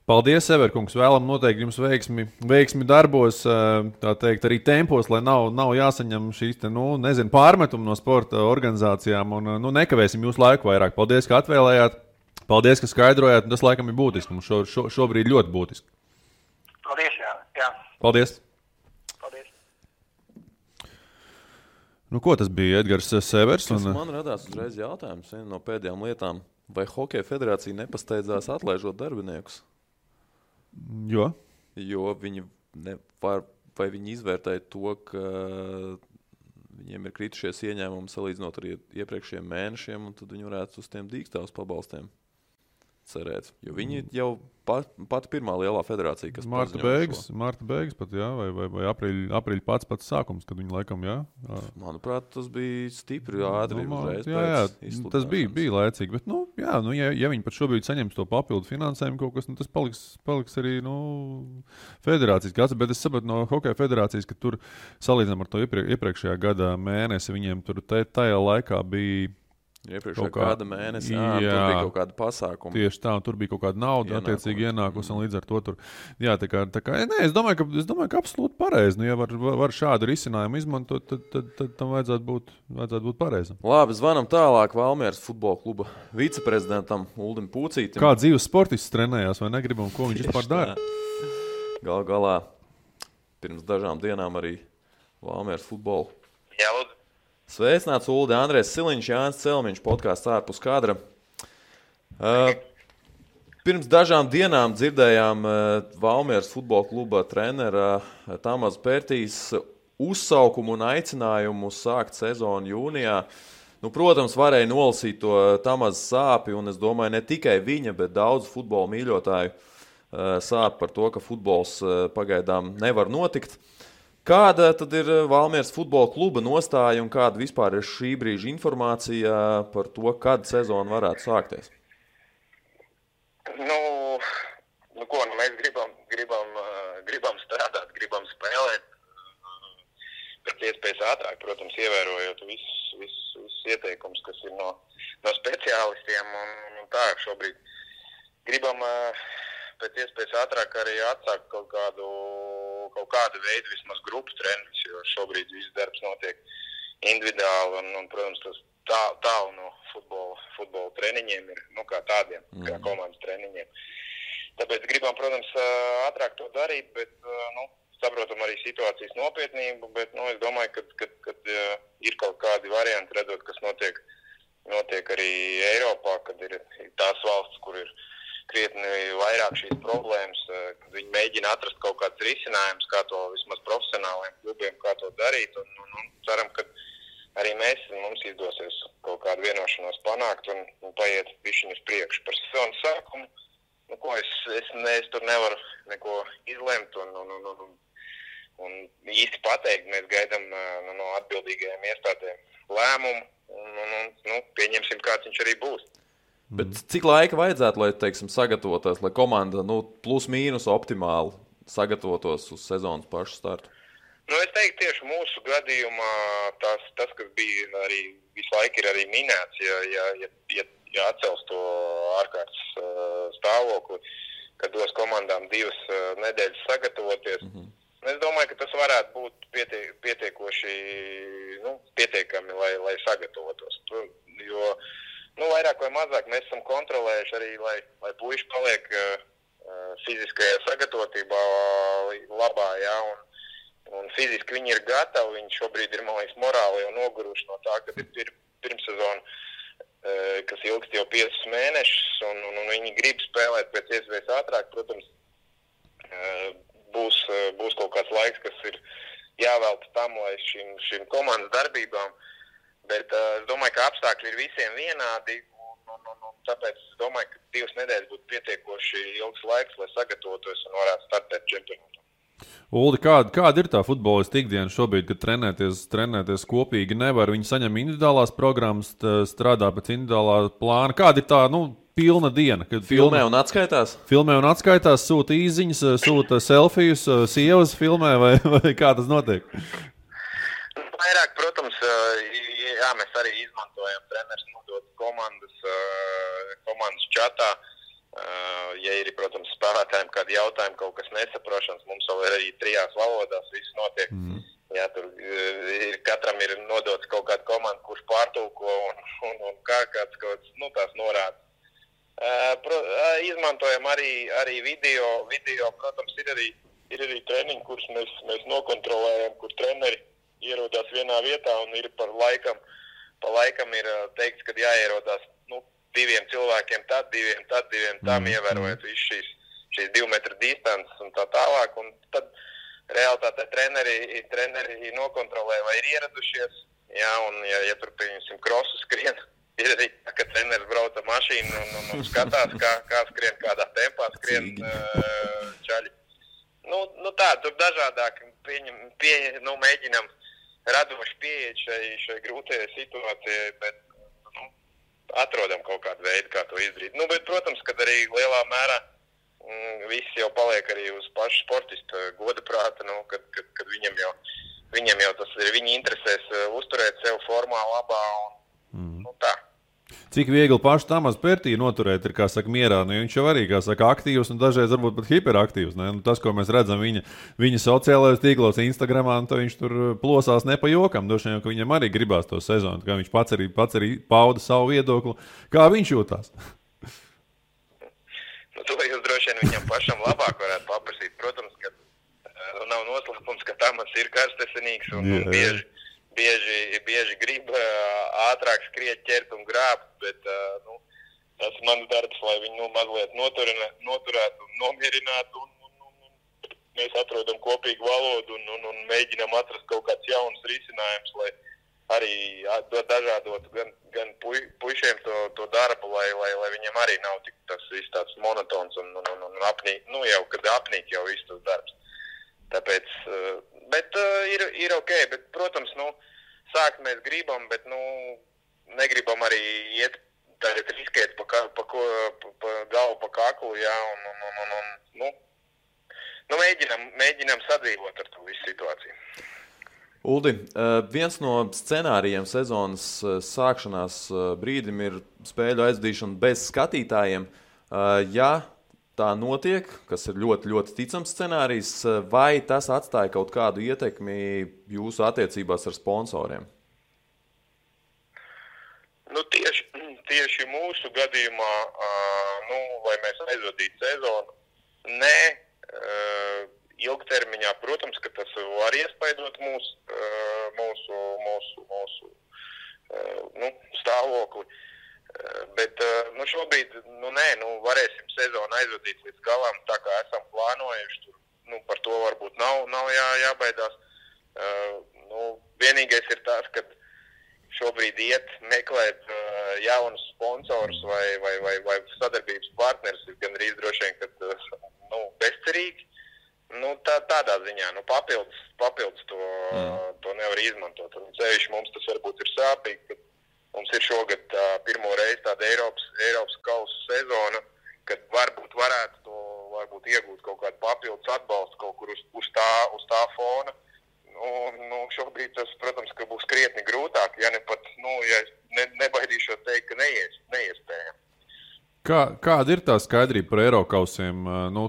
Paldies, Severkungs. Vēlam noteikti jums veiksmi darbos, tā teikt, arī tempos, lai nav jāsaņem šīs pārmetumi no sporta organizācijām. Un nekavēsim jūsu laiku vairāk. Paldies, ka atvēlējāt. Paldies, ka skaidrojāt. Tas laikam ir būtiski. Mums šobrīd ļoti būtiski. Paldies, jā. Paldies. Paldies. Ko tas bija, Edgars Severs? Man radās uzreiz jautājums, viena no pēdējām lietām. Vai Hokeja federācija nepasteidzās atlaižot darbiniekus? Jo viņi vai viņi izvērtēja to, ka viņiem ir kritušies ieņēmumi salīdzinot ar iepriekšējiem mēnešiem, un tad viņi varētu uz tiem dīkstāvus pabalstiem cerēt. Jo viņi jau pat pirmā lielā federācija, kas Marta beigas pat, jā, vai aprīļa pats sākums, kad viņi laikam, jā. Manuprāt, tas bija stipri ātri uzreiz pēc izsludināšanas. Tas bija laicīgi, bet, ja viņi pat šobrīd saņems to papildu finansējumu kaut kas, tas paliks arī, federācijas gads, bet es sapratu no Hokeja federācijas, ka tur salīdzinām ar to iepriekšējā gada mēnesi, viņiem tur tajā laikā bija iepriekšējā gada mēnesī, tur bija kaut kāda pasākuma. Tieši tā, un tur bija kaut kāda nauda attiecīgi ienākusi, un līdz ar to tur, jā, tā kā, es domāju, ka absolūti pareizi, ja var šādu risinājumu izmantot, tad tam vajadzētu būt pareizam. Labi, zvanam tālāk Valmieras futbola kluba viceprezidentam Uldim Pūcītim. Kā dzīves sportists trenējās, vai negribam, ko viņš vispār dara? Galā pirms dažām dienām arī Valmieras futbolu. Jā, lūdzu. Sveicināts Uldi, Andrēs Siliņš, Jānis Celmiņš, podkāsts ārpus kadra. Pirms dažām dienām dzirdējām Valmieras futbola kluba trenera Tamasa Pērtīs uzsaukumu un aicinājumu sākt sezonu jūnijā. Nu, protams, varēja nolasīt to Tamasa sāpi, un es domāju, ne tikai viņa, bet daudz futbola mīļotāju sāp par to, ka futbols pagaidām nevar notikt. Kāda tad ir Valmieras futbola kluba nostāja un kāda vispār ir šī brīža informācija par to, kad sezona varētu sākties? Mēs gribam strādāt, gribam spēlēt pēc iespējas ātrāk, protams, ievērojot visus ieteikumus, kas ir no speciālistiem. Un tā, šobrīd gribam pēc iespējas ātrāk arī atsākt kaut kādu veidu vismaz grupu treniņus, jo šobrīd viss darbs notiek individuāli un protams, tas tālu no futbola treniņiem ir, kā tādiem, kā komandas treniņiem. Tāpēc gribam, protams, ātrāk to darīt, bet, saprotam arī situācijas nopietnību, bet, es domāju, ka ir kaut kādi varianti, redzot, kas notiek arī Eiropā, kad ir tās valsts, kur ir krietni vairāk šīs problēmas, kad viņi mēģina atrast kaut kādus risinājumus, kā to vismaz profesionāliem klubiem, kā to darīt, un ceram, ka arī mums izdosies kaut kādu vienošanos panākt un paiet bišķiņu uz priekšu par sezonas sākumu. Es tur nevaru neko izlemt un īsti pateikt. Mēs gaidām no atbildīgajiem iestādēm lēmumu un pieņemsim, kāds viņš arī būs. Bet cik laika vajadzētu, lai, sagatavotos, lai komanda plus mīnus optimāli sagatavotos uz sezonas pašu startu? Es teiktu, tieši mūsu gadījumā tas, kas bija arī visu laiku ir arī minēts, ja atcels to ārkārtas stāvokli, kad dos komandām 2 nedēļas sagatavoties. Es domāju, ka tas varētu būt pietiekami, lai sagatavotos. Jo vairāk vai mazāk mēs esam kontrolējuši arī, lai puiši paliek fiziskajā sagatavotībā labā, jā, un fiziski viņi ir gatavi, viņi šobrīd ir, man liekas, morāli jau noguruši no tā, kad ir pirmsezona, kas ilgst jau 5 mēnešus, un viņi grib spēlēt pēc iespējas ātrāk. Protams, būs kaut kāds laiks, kas ir jāvelta tam, lai šīm komandas darbībām, bet es domāju, ka apstākļi ir visiem vienādi, un tāpēc es domāju, ka 2 nedēļas būtu pietiekoši ilgs laiks, lai sagatavotos un varētu startēt čempionātā. Uldi, kāda ir tā futbolista ikdiena šobrīd, kad trenēties kopīgi nevar? Viņi saņem individuālās programmas, strādā pēc individuālā plāna. Kāda ir tā, pilna diena? Filmē un atskaitās? Filmē un atskaitās, sūta īziņas, sūta selfijus, sievas filmē vai kā tas notiek? Vairāk, protams, mēs arī izmantojam treneris nodot komandas čatā. Ja ir, protams, spēlētājiem kādi jautājumi, kaut kas nesaprošanas, mums vēl ir arī 3 valodās, viss notiek. Jā, tur katram ir nodots kaut kāda komanda, kurš pārtulko un kāds tās norādes. Izmantojam arī video, protams, ir arī treniņi, kurus mēs nokontrolējam, kur treneri ierodās vienā vietā un ir pa laikam ir teikts, ka jāierodās 2 cilvēkiem tad, 2 tam, ievērojot visu šīs 2 metru distances un tā tālāk. Un tad realitātē treneri nokontrolē, vai ir ieradušies. Jā, un ja tur, pieņemsim, krosu skrien, ir arī tā, ka treneris brauca mašīnu un skatās, kā skrien, kādā tempā skrien čaļi. Tur dažādāk mēģinam radoši pieeja šai grūtajai situācijai, bet atrodam kaut kādu veidu, kā to izdarīt. Bet, protams, kad arī lielā mērā viss jau paliek arī uz pašu sportistu goda prāta, kad viņam jau tas ir viņa interesēs uzturēt sev formā labā un tā. Cik viegli pašu Tamasa Pērtī noturēt ir, kā saka, mierā. Viņš jau arī, kā saka, aktīvs un dažreiz varbūt pat hiperaktīvs. Ne? Tas, ko mēs redzam viņa sociālajos tīklos, Instagramā, viņš tur plosās ne pa jokam. Droši vien, ka viņam arī gribās to sezonu. Kā viņš pats arī pauda savu viedokli. Kā viņš jūtās? To jūs droši vien viņam pašam labāk varētu paprasīt. Protams, ka nav noslēpums, Valsts ir karstesinīgs un bieži grib ātrāk skriet, ķert un grābt, bet tas ir mans darbs, lai viņu mazliet noturētu un nomierinātu. Mēs atrodam kopīgu valodu un mēģinām atrast kaut kāds jauns risinājums, lai arī dažādotu gan puišiem to darbu, lai viņiem arī nav tik tas viss tāds monotons un apnīk, jau kad apnīk jau viss tas darbs. Tāpēc, bet ir ok, bet, protams, sākt mēs gribam, bet, negribam arī iet tagad riskēt pa galvu, pa kaklu, jā, mēģinām sadzīvot ar to visu situāciju. Uldi, viens no scenārijiem sezonas sākšanās brīdim ir spēļu aizvadīšana bez skatītājiem. Ja tā notiek, kas ir ļoti, ļoti ticams scenārijs, vai tas atstāja kaut kādu ietekmi jūsu attiecībās ar sponsoriem? Tieši mūsu gadījumā, lai mēs aizvadītu sezonu, nē. Ilgtermiņā, protams, ka tas var iespaidot mūsu stāvokli, bet šobrīd, varēsim sezonu aizvadīt līdz galam, tā kā esam plānojuši, tur, par to varbūt nav jābaidās. Vienīgais ir tas, ka šobrīd meklēt jaunus sponsorus vai sadarbības partnerus ir gandrīz droši vien, kad bezcerīgi. Tādā ziņā, papildus to nevar izmantot. Un ceļš mums tas varbūt ir sāpīgi, ka mums ir šogad pirmo reizi tāda Eiropas kausa sezona, kad varētu iegūt kaut kādu papildus atbalstu kaut kur uz tā fona. Šobrīd tas, protams, ka būs krietni grūtāk, ja ne pat, nebaidīšos teikt, ka neiespējami. Kāda ir tā skaidrība par Eirokausiem?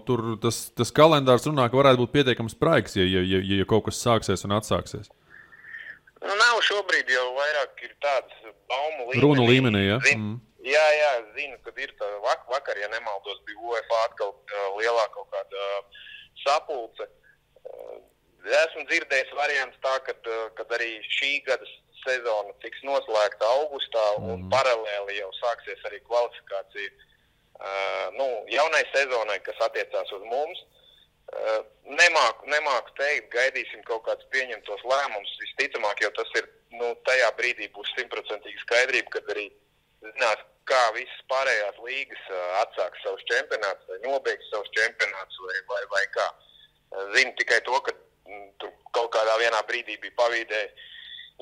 Tur tas kalendārs runā, ka varētu būt pietiekams spraigs, ja kaut kas sāksies un atsāksies. Nav šobrīd jau vairāk ir tāds baumu līmenī. Runu līmenī, ja? Jā, zinu, kad ir tā vakar, ja nemaldos, bija UEFA atkal lielā kaut kāda sapulce. Esmu dzirdējis variants tā, kad arī šī gada sezona tiks noslēgta augustā un paralēli jau sāksies arī kvalifikācija jaunai sezonai, kas attiecās uz mums. Nemāku teikt, gaidīsim kaut kādus pieņemtos lēmumus. Visticamāk, jau tas ir, tajā brīdī būs 100% skaidrība, kad arī zinās, kā visas pārējās līgas atsāks savus čempionātus vai nobeigs savus čempionātus vai kā. Zinu tikai to, ka tur kaut kādā vienā brīdī bija pavīdēja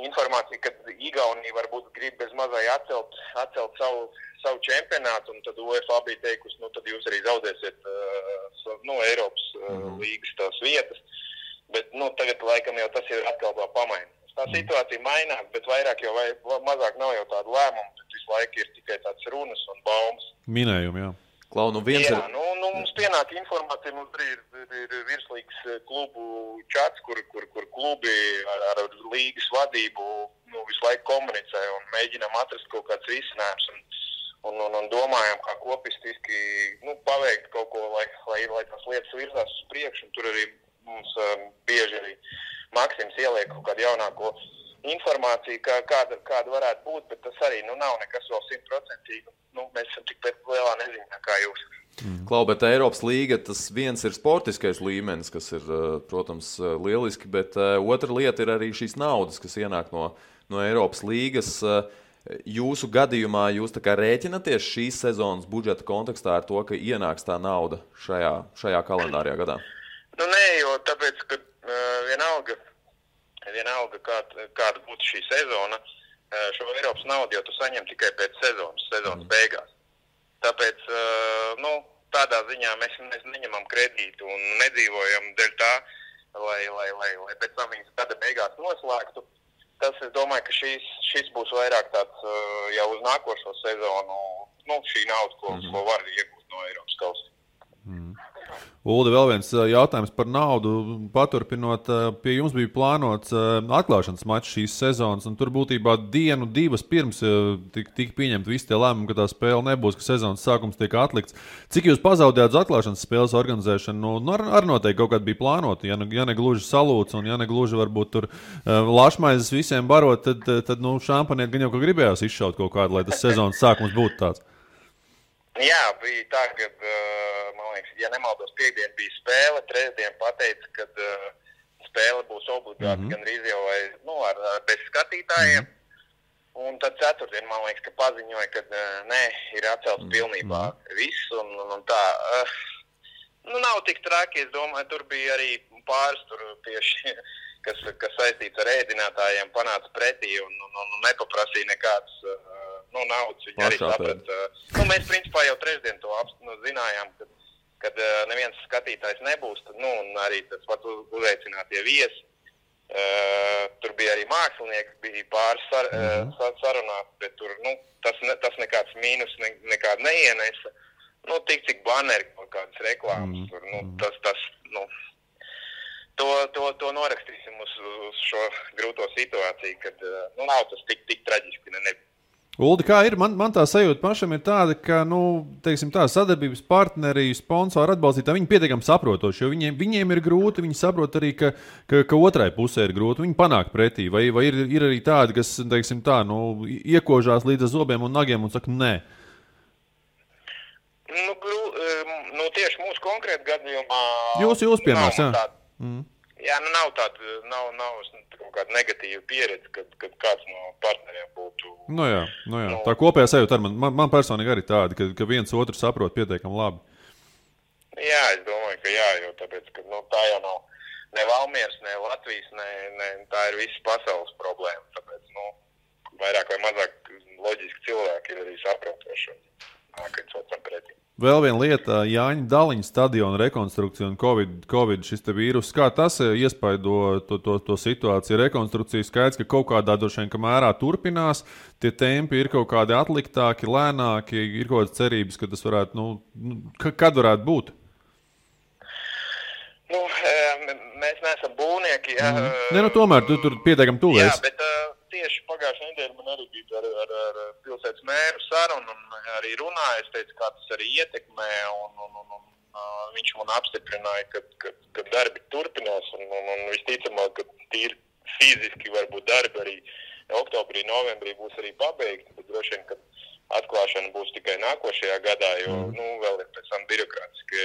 informācija, ka Igaunija varbūt grib bez mazai atcelt savu čempionātu, un tad UEFA bija teikusi, tad jūs arī zaudēsiet Eiropas līgas tās vietas, bet tagad laikam jau tas ir atkal pamainīts. Tā situācija mainās, bet vairāk jau mazāk nav jau tādu lēmumu, bet visu laiku ir tikai tāds runas un baumas. Minējumi, jā. Klau, mums pienāk informācija, mums arī ir virslīgas klubu čats, kur klubi ar līgas vadību visu laiku komunicē un mēģinām atrast kaut kāds risinājums un domājam, kā kopistiski paveikt kaut ko, lai tās lietas virzās uz priekšu. Un tur arī mums bieži arī Maksims ieliek kaut kādu jaunāko informāciju, kāda varētu būt, bet tas arī nav nekas vēl 100%. Mēs esam tikpat lielā neziņā kā jūs. Klau, bet Eiropas līga, tas viens ir sportiskais līmenis, kas ir, protams, lieliski, bet otra lieta ir arī šīs naudas, kas ienāk no Eiropas līgas. Jūsu gadījumā jūs tā kā rēķinaties šīs sezonas budžeta kontekstā ar to, ka ienāks tā nauda šajā kalendārajā gadā? Nē, jo tāpēc, ka vienalga kāda būtu šī sezona, šo Eiropas naudu jau tu saņem tikai pēc sezonas beigās. Tāpēc, tādā ziņā mēs neņemam kredītu un nedzīvojam dēļ tā, lai pēc tam viņas gada beigās noslēgtu. Tas, es domāju, ka šis būs vairāk tāds jau uz nākošo sezonu, šī nauda, ko var iegūt no Eiropas kausa. Uldi, vēl viens jautājums par naudu. Paturpinot, pie jums bija plānots atklāšanas mačs šīs sezonas, un tur būtībā dienu, divas pirms tika pieņemti visi tie lēmumi, ka tā spēle nebūs, ka sezonas sākums tiek atlikts. Cik jūs pazaudējāt uz atklāšanas spēles organizēšanu? Nu, ar noteikti kaut kādā bija plānota. Ja ne gluži salūts, un ja ne gluži varbūt tur lašmaizes visiem barot, tad šampaniet gan jau, ka gribējās izšaut kaut kādu, lai tas sezonas sākums būtu tāds. Jā, bija tā, ka, man liekas, ja nemaldos, piekdien bija spēle, trešdien pateica, ka spēle būs obligāti gandrīz jau bez skatītājiem. Un tad ceturtdien, man liekas, ka paziņoja, ka nē, ir atcelts pilnībā viss. Un tā, nav tik traki, es domāju, tur bija arī pāris tur tieši, kas saistīts ar ēdinātājiem, panāca pretī un nepaprasīja nekāds naudas. Viņi arī saprata. Mēs principā jau trešdien to zinājām, kad neviens skatītājs nebūs. Un arī tas pat uzaicinātie viesi. Tur bija arī mākslinieki, bija pāris sarunās, bet tur tas nekāds mīnus nekāda neienesa. Tik cik banneri kaut kādas reklāmas. To norakstīsim uz šo grūto situāciju, kad nav tas tik traģiski nebija. Uldi, kā ir? Man tā sajūta pašam ir tāda, ka, teiksim tā, sadarbības partneri, sponsori, atbalstītāji, viņi pietiekami saprotoši, jo viņiem ir grūti, viņi saprot arī, ka otrai pusē ir grūti, viņi panāk pretī, vai ir arī tādi, kas, teiksim tā, iekožās līdz zobiem un nagiem un saka, nē. Tieši mūsu konkrēti gadījumā... Jūs piemērs, jā. Jā, nav tāda, nav kaut kāda negatīva pieredze, kad kāds no partneriem būtu... Jā. Tā kopējā sajūta ar man personīgi arī tāda, ka viens otru saprot pietiekami labi. Jā, es domāju, ka jā, jo tāpēc, ka tā jau nav ne Valmieras, ne Latvijas, ne tā ir visas pasaules problēma. Tāpēc, vairāk vai mazāk loģiski cilvēki ir arī saprotoši un nākot otram pretī. Vēl viena lieta, Jāņa Daliņa stadiona rekonstrukcija un Covid šis te vīrus. Kā tas iespaido to situāciju? Rekonstrukcija skaidrs, ka kaut kādā droši vien mērā turpinās, tie tempi ir kaut kādi atliktāki, lēnāki, ir kaut kādas cerības, ka tas varētu, kad varētu būt? Mēs neesam būvnieki. Tomēr tur pietiekami tuvēs. Jā, bet tieši pagājušajā nedēļā man arī bija ar pilsētas mēru sarunu un arī runāja. Es teicu, kā tas arī ietekmē un viņš man apstiprināja, ka darbi turpinās un visticamāk, ka tīri fiziski varbūt darbi arī oktobrī, novembrī būs arī pabeigti, bet droši vien, ka atklāšana būs tikai nākošajā gadā, jo vēl ir pēc tam birokrātiski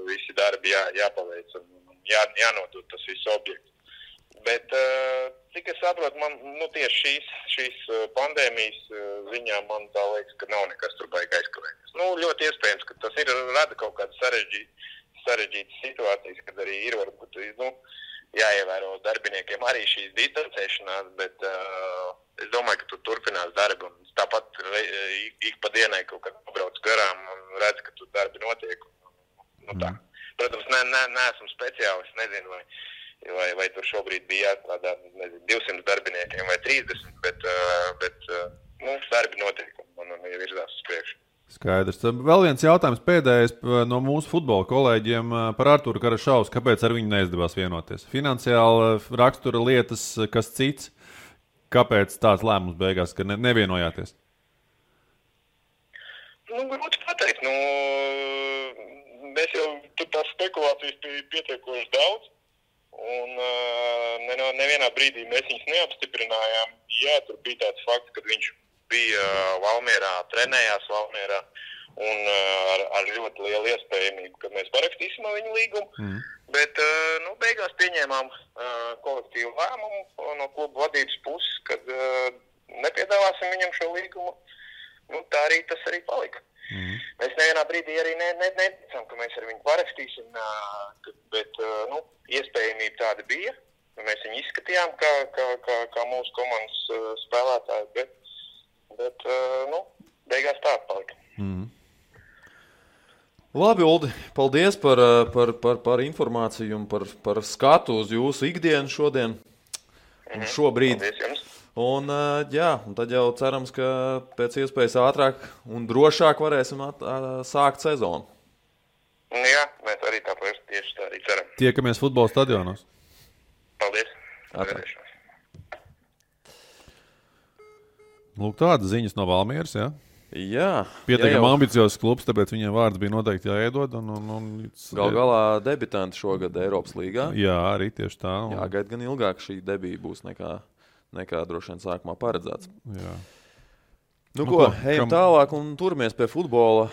visi darbi jāpaveic un jānodod tas viss objekts. Bet, cik es saprotu, man tieši šīs pandēmijas ziņā man tā liekas, ka nav nekas tur baigi aizkavēties. Ļoti iespējams, ka tas rada kaut kādas sarežģītas situācijas, kad arī ir varbūt jāievēro darbiniekiem arī šīs distancēšanās, bet es domāju, ka tur turpinās darbi un tāpat ik pa dienai kaut kad pabrauc garām un redz, ka tur darbi notiek. Tā. Protams, neesmu speciālists, nezinu, vai tur šobrīd bija jāstrādā 200 darbiniekiem vai 30, bet darbi notiek un virzās uz priekšu. Skaidrs. Vēl viens jautājums pēdējais no mūsu futbola kolēģiem par Arturu Karašausku. Kāpēc ar viņu neizdevās vienoties? Finansiāli rakstura lietas, kas cits? Kāpēc tāds lēmums beigās, ka nevienojāties? Grūti pateikt. Mēs jau tur tās spekulācijas bija pietiekoši daudz. Un nevienā brīdī mēs viņus neapstiprinājām. Jā, tur bija tāds fakts, kad viņš bija Valmierā, trenējās Valmierā un ar ļoti lielu iespējamību, ka mēs parakstīsim viņu līgumu. Bet beigās pieņēmām kolektīvu lēmumu no kluba vadības puses, kad nepiedāvāsim viņam šo līgumu. Tas arī palika. Mēs nevienā brīdī arī neticam, ka mēs ar viņu parakstīsim, bet iespējamība tāda bija. Mēs viņu izskatījām kā mūsu komandas spēlētāji, bet beigās tā palika. Labi, Uldi, paldies par informāciju un par skatu uz jūsu ikdienu šodien un šobrīd. Paldies jums. Un tad jau cerams, ka pēc iespējas ātrāk un drošāk varēsim sākt sezonu. Jā, mēs arī tāpēc tieši tā arī ceram. Tiekamies futbola stadionos. Paldies. Lūk, tādas ziņas no Valmieras, jā? Jā. Pietiekami ambiciozs klubs, tāpēc viņiem vārds bija noteikti jāiedod. Gal galā debitanti šogad Eiropas līgā. Jā, arī tieši tā. Jāgaida gan ilgāk šī debija būs nekā droši vien sākumā paredzēts. Jā. Nu ko, ejam tālāk un turamies pie futbola.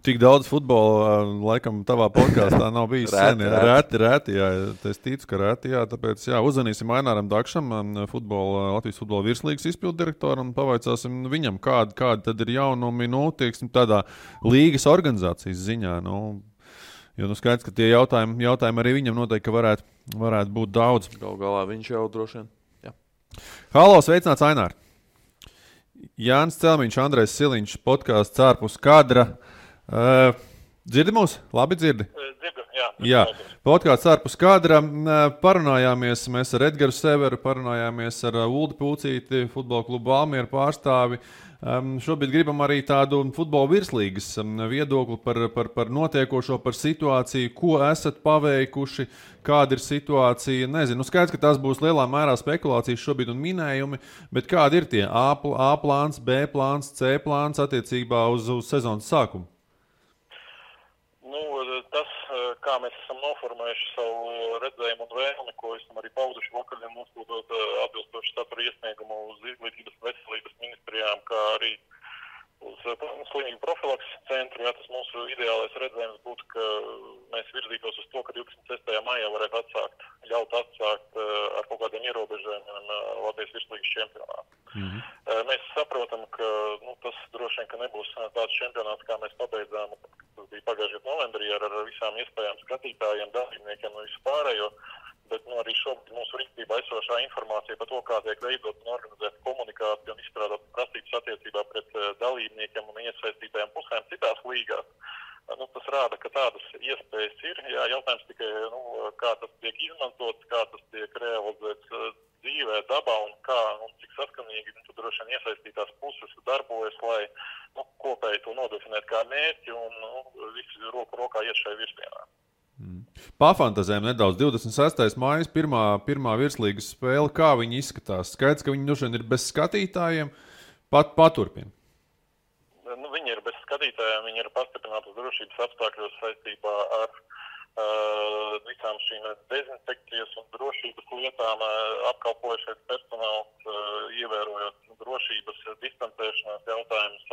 Tik daudz futbola, laikam, tavā podkāstā nav bijis sen. Reti, jā. Es ticu, ka reti, jā. Tāpēc, jā, uzvanīsim Aināram Dakšam, Latvijas futbola virslīgas izpilddirektoram un pavaicāsim viņam, kādi tad ir jaunumi, tieksim, tādā līgas organizācijas ziņā. Jo skaidrs, ka tie jautājumi arī viņam noteikti, ka varētu būt daudz. Galu galā viņš jau droši vien. Jā. Halo, sveicināts Ainār! Jānis Celmiņš, Andrejs Siliņš, podkāsts ārpus kadra. Dzirdi mūs? Labi dzirdi? Dzirdu, jā. Jā, podkāsts ārpus kadra. Parunājāmies mēs ar Edgaru Severu, parunājāmies ar Uldi Pūcīti, futbola klubu Valmiera pārstāvi. Šobrīd gribam arī tādu futbola virslīgas viedokli par notiekošo, par situāciju, ko esat paveikuši, kāda ir situācija. Nezinu, skaidrs, ka tas būs lielā mērā spekulācijas šobrīd un minējumi, bet kādi ir tie A plāns, B plāns, C plāns attiecībā uz sezonas sākumu? Tas, kā mēs esam noformējuši savu redzējumu un vēlmi, ko esam arī pauduši vakaļiem nosūtot atbilstoši satura iesniegumu uz Izglītības un veselības ministrijām, kā arī uz slimību profilakses centru. Jā, tas mūsu ideālais redzējums būtu, ka mēs virzītos uz to, ka 26. maijā varētu ļaut atsākt ar kaut kādiem ierobežojumiem Latvijas virslīgas čempionātu. Mēs saprotam, ka tas droši vien, ka nebūs tāds čempionāts, kā mēs pabeidzām, tas bija pagājušajā novembrī ar visām iespējām skatītājiem, dalībniekiem un visu pārējo, bet arī šobrīd mūsu rīcībā esošā informācija par to, kā tiek veidot un organizēt komunikāciju un izstrādāt prasības attiecībā pret dalībniekiem un iesaistītajām pusēm citās līgās. Tas rāda, ka tādas iespējas ir. Jā, jautājums tikai, kā tas tiek izmantots, kā tas tiek realizēts dzīvē, dabā un kā un cik saskanīgi droši vien iesaistītās puses darbojas, lai kopēji to nodefinēt kā mērķi un visi roku rokā iet šai virzienā. Pafantazējam nedaudz. 26. maijas, pirmā virslīgas spēle, kā viņi izskatās? Skaidrs, ka viņi droši vien ir bez skatītājiem, paturpina. Viņi ir bez skatītājiem, viņi ir pastiprinātas drošības apstākļos saistībā ar visām šīm dezinfekcijas un drošības lietām apkalpojušais personāls, ievērojot drošības distancēšanās jautājumus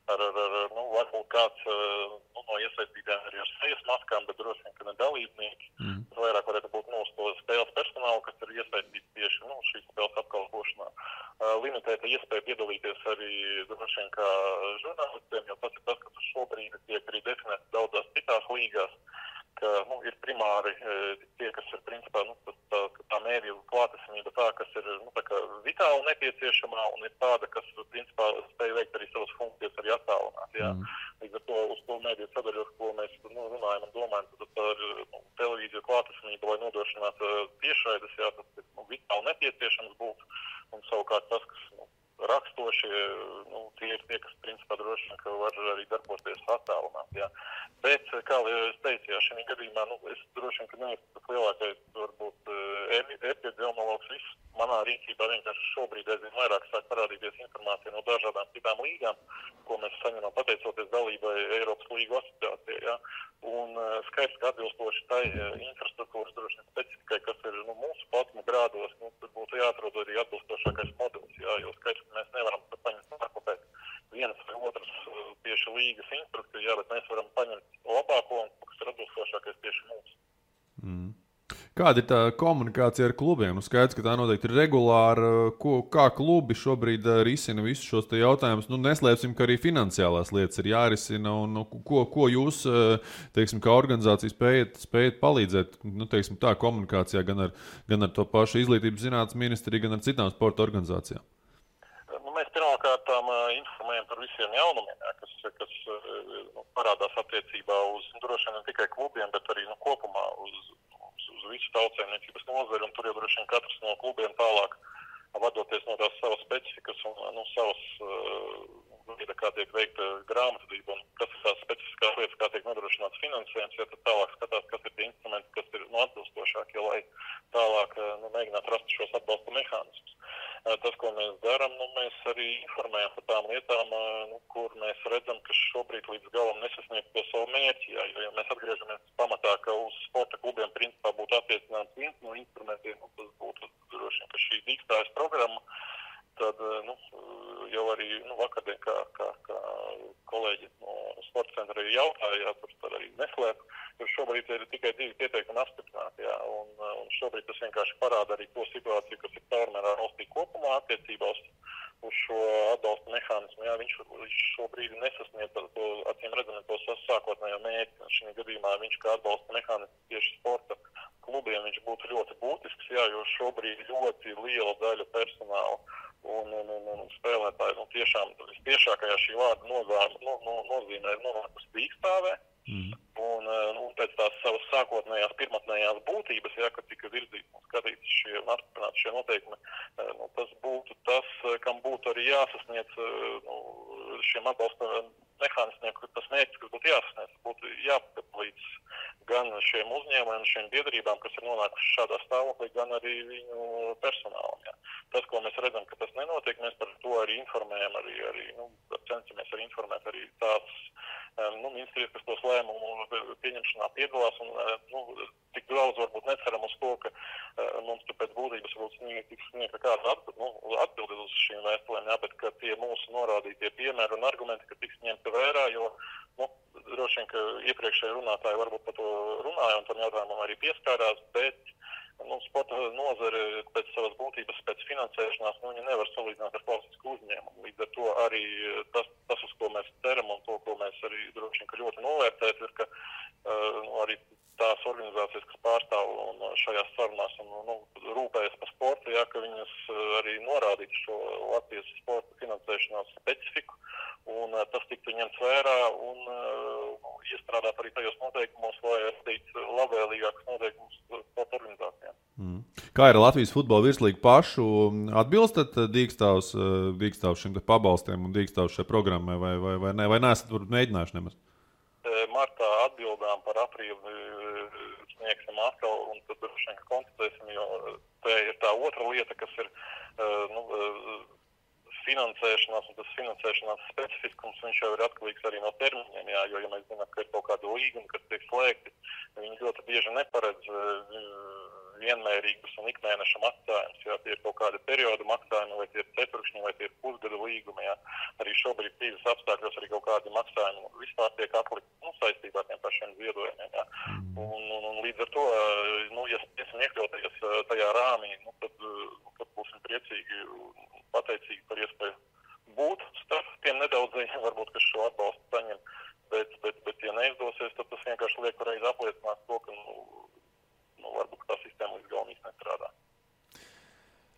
varbūt kāds no iesaistītājiem arī ar sejas maskām, bet droši vien, ka ne dalībnieki. Vairāk varētu būt to spēles personālu, kas ir iesaistīts tieši šīs spēles apkalpošanā. Limitēta iespēja piedalīties arī droši vien kā žurnālistiem, jo tas ir tas, kas šobrīd tiek arī definēts daudzās citās līgās, ka ir primāri tie, kas ir principā tā mēdīju klātesamība tā, kas ir tā kā vitāli nepieciešamā un ir tāda, kas principā spēj veikt arī savas funkcijas arī attālināt. Jā. Līdz ar to uz to mēdīju sadaļos, ko mēs runājam un domājam, tad ar televīziju klātesamību, lai nodrošinātu tiešraides, jā, tas ir vitāli nepieciešams būt un savukārt tas, kas rakstoši, tie ir tie, kas principā droši vien, ka var arī darboties attālināt. Jā. Bet, kā es teicu, jā, šajā gadījumā, es droši vien, ka neesmu tas lielākais, varbūt, epidemiologs, viss manā rīcībā vienkārši šobrīd aizvien vairāk sāk parādīties informācija no dažādām citām līgām, ko mēs saņemam pateicoties dalībai Eiropas līgu asociācijai, jā. Un skaidrs, ka atbilstoši tai infrastruktūras droši vien specifikai, kas ir mūsu platuma grādos, tur būtu jāatrod arī atbilstošākais modelis, jā, jo skaidrs, ka mēs nevaram paņemt pārkopēt vienas vai otras tieši līgas instrukciju, jā, bet mēs varam paņemt labāko un kas ir atbilstošākais tieši mums. Kāda ir tā komunikācija ar klubiem? Skaidrs, ka tā noteikti ir regulāra. Kā klubi šobrīd risina visus šos jautājumus? Neslēpsim, ka arī finansiālās lietas ir jārisina. Un, ko jūs, teiksim, kā organizācija spējat palīdzēt, teiksim, tā komunikācijā gan ar to pašu izglītības zinātnes ministriju, gan ar citām sporta organizācijām? Mēs pirmkārtām informējam par visiem jaunumiem, kas parādās attiecībā uz droši vien ne tikai klubiem, bet arī kopumā uz visu tautsēmniecības nozari, un tur jau droši vien katrs no klubiem tālāk, vadoties no tās savas specifikas un savas kā tiek veikta grāmatvedība un kas ir tās specifiskās lietas, kā tiek nodrošināts finansējums, tad tālāk skatās, kas ir tie instrumenti, kas ir atbilstošākie, lai tālāk mēģinātu rast šos atbalsta mehānismus. Tas, ko mēs darām, mēs arī informējam par tām lietām, kur mēs redzam, ka šobrīd līdz galam nesasniegt to savu mērķi. Jo mēs atgriežamies pamatā, ka uz sporta klubiem principā būtu attiecināts viens no instrumentiem, tas būtu droši vien, ka šī dīkstājas programma, tad jau arī vakardien, kā kolēģi no sporta centra arī jautāja, tur arī neslēp, jo šobrīd ir tikai 2 pieteikumi apstiprināti, un šobrīd tas vienkārši parāda arī to situāciju, kas ir caurmērā valstī kopumā attiecībā uz šo atbalsta mehānismu. Viņš šobrīd nesasniedz to, acīm redzam, to sākotnējo mērķi. Šī gadījumā viņš kā atbalsta mehānisms tieši sporta klubiem viņš būtu ļoti būtisks, jo šobrīd ļoti liela daļa personāla un spēlētāji tiešām vistiešākajā šī vārda nozīmē ir nonākusi dīkstāvē. Un pēc tās savas sākotnējās pirmatnējās būtības, kad tika virzīts un skatīts un apstiprināti šie noteikumi, tas būtu tas, kam būtu arī jāsasniedz šiem atbalsta mehānismiem, tas mērķis, kas būtu jāsasniedz, būtu jāpalīdz gan šiem uzņēmumiem, šiem biedrībām, kas ir nonākuši šādā stāvoklī, gan arī viņu personālam. Tas, ko mēs redzam, ka tas nenotiek, mēs par to arī informējam, arī cenšamies arī informēt arī tās ministrijas, kas tos lēmumu pieņemšanā piedalās, un tik daudz varbūt neceram uz to, ka mums tur pēc būtības tiks sniegta kāda atbildi uz šīm vēstulēm, bet ka tie mūsu norādītie piemēri un argumenti, ka tiks ņemti vērā, jo droši vien, ka iepriekšēji runātāji varbūt par to runāja un tam jautājumam arī pieskārās, bet sporta nozare pēc savas būtības, pēc finansēšanās, viņi nevar salīdzināt ar klasisku uzņēmumu. Līdz ar to arī tas, uz ko mēs ceram un to, ko mēs arī droši vien, ka ļoti novērtēt, ir, ka arī tās organizācijas, kas pārstāv šajās sarunās un rūpējas par sportu, ka viņas arī norādītu šo Latvijas sporta finansēšanās specifiku, un tas tiktu ņemts vērā un iestrādāt arī tajos noteikumos, lai radītu labvēlīgākus noteikumus sporta organizācijām. Kā ir Latvijas futbola virslīga pašu? Atbilstat Dīkstāvs šim pabalstiem un Dīkstāvs šai programmai vai neesat mēģinājuši nemaz? Martā atbildām par aprīli sniegsim atkal un tad droši vien konstatēsim, jo te ir tā otra lieta, kas ir finansēšanās, un tas finansēšanās specifiskums, viņš jau ir atkarīgs arī no termiņiem, jo, ja mēs zinām, ka ir kaut kāda līguma, kas tiek slēgti, viņi ļoti bieži neparedz vienmērīgus un ikmēneša maksājumus, tie ir kaut kādi periodu maksājumi, vai tie ir ceturkšņi, vai tie ir pusgada līgumi, Arī šobrīd krīzes apstākļos arī kaut kādi maksājumi vispār tiek atlikti saistībā ar tiem pašiem ziedojumiem, Un līdz ar to, ja esam iekļauties tajā rāmī, tad būsim priecīgi un pateicīgi par iespēju būt starp tiem nedaudzajiem, varbūt, kas šo atbalstu saņem, bet ja neizdosies, tad tas vienkārši liek pareizi apliecināt to, ka varbūt tā sistēma līdz galam īsti nestrādā.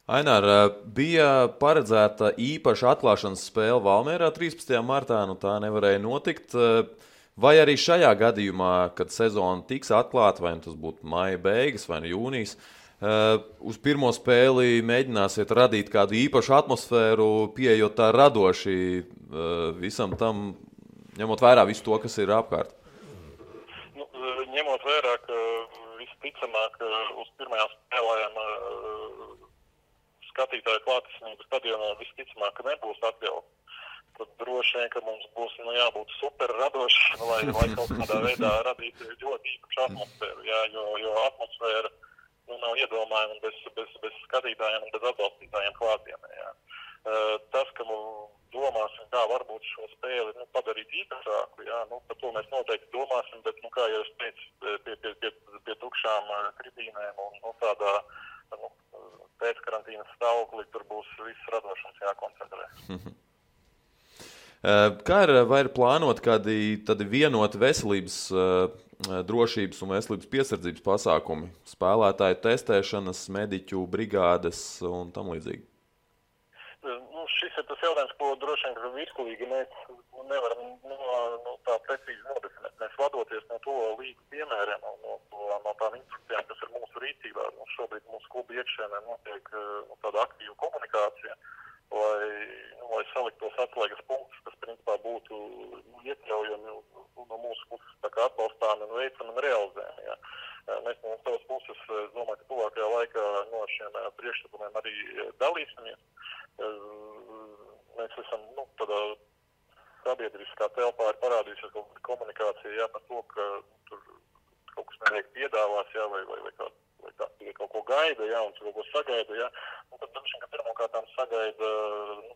Ainār, bija paredzēta īpaša atklāšanas spēle Valmierā 13. martā, tā nevarēja notikt. Vai arī šajā gadījumā, kad sezona tiks atklāta, vai tas būtu maija beigas vai jūnijas, uz pirmo spēli mēģināsiet radīt kādu īpašu atmosfēru, pieejot tā radoši visam tam, ņemot vērā visu to, kas ir apkārt? Ņemot vērā, ka visticamāk uz pirmajām spēlēm skatītāju klātesamību stadionā visticamāk, ka nebūs atļauts. Tad droši vien, ka mums būs jābūt super radoši, lai kaut kādā veidā radītu ļoti īpašu atmosfēru, jo atmosfēra nav iedomājama bez skatītājiem un bez atbalstītājiem klātienē. Tas, ka domāsim, kā varbūt šo spēli padarīt īpašāku, par to mēs noteikti domāsim, bet, kā jau es teicu, pie tukšām tribīnēm un tādā pēckarantīnas stāvoklī tur būs viss radošums jākoncentrē. Kā vai ir plānot kādi vienoti veselības, drošības un veselības piesardzības pasākumi, spēlētāju testēšanas, mediķu brigādes un tam līdzīgi? Šis ir tas jautājums, ko droši vien, ka virslīgi mēs nevaram tā precīzi nodefinēt. Mēs vadoties no to līgu piemēriem un no tām instrukcijām, kas ir mūsu rīcībā. Šobrīd mūsu klubu iekšēnē notiek tāda aktīva komunikācija lai salikt tos atslēgas punktus, kas principā būtu iekļaujami no mūsu puses tā kā atbalstām un veicam un realizējam. Ja. Mēs no savas puses, domāju, ka tuvākajā laikā no šiem priekšlikumiem arī dalīsimies. Mēs esam, tādā sabiedriskā telpā ir parādījusies kaut kāda komunikācija, par to, ka tur kaut kas netiek piedāvās, vai kāds kaut ko gaida, un tur kaut ko sagaida, un tad droši vien, ka pirmkārtām sagaida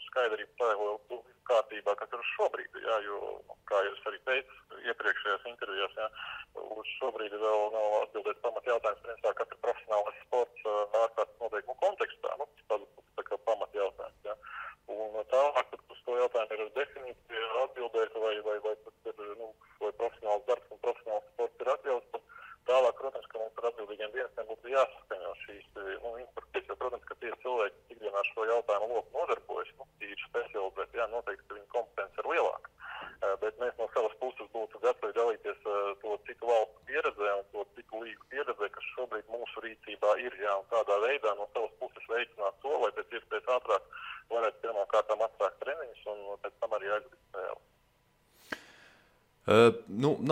skaidrību tā, lai kārtībā, kas ir šobrīd, jo, kā jūs arī teicu iepriekšējās intervijās, uz šobrīd vēl nav atbildēt pamat jautājums, principā, kas ir profesionālais sports ārkārtas noteikumu kontekstā, tā kā pamat jautājums, Un tālāk, tad uz to jautājumu ir definīcija atbildēt, vai tas ir, vai profesionāls darbs un profesionāls sports ir atļauts, tad tālāk, protams, ka mums ar atbildīgiem dienestiem būtu jāsaskaņo šīs instrukcijas, jo, protams, ka tie cilvēki ikdienā šo jautājumu loku nodarbojas, tīri specializēti, noteikti, ka viņa kompetence ir lielāka. Bet mēs no savas puses būtu gatavi dalīties to citu valstu pieredzē un to citu līgu pieredzē, kas šobrīd mūsu rīcībā ir, un tādā veidā no savas puses veicināt to, lai pēc iespējas ātrāk varētu pirmkārtām atsākt treniņus un pēc tam arī aizvīt spēli.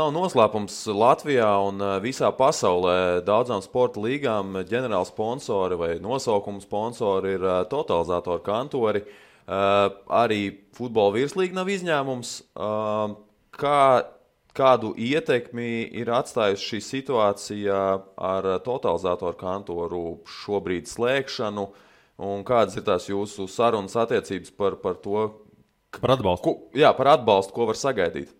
Nav noslēpums Latvijā un visā pasaulē daudzām sporta līgām ģenerāli sponsori vai nosaukumu sponsori ir totalizatoru kantori. Arī futbola virslīga nav izņēmums. Kādu ietekmi ir atstājusi šī situācija ar totalizatoru kantoru šobrīd slēgšanu, un kādas ir tās jūsu sarunas attiecības par to? Par atbalstu. Par atbalstu, ko var sagaidīt?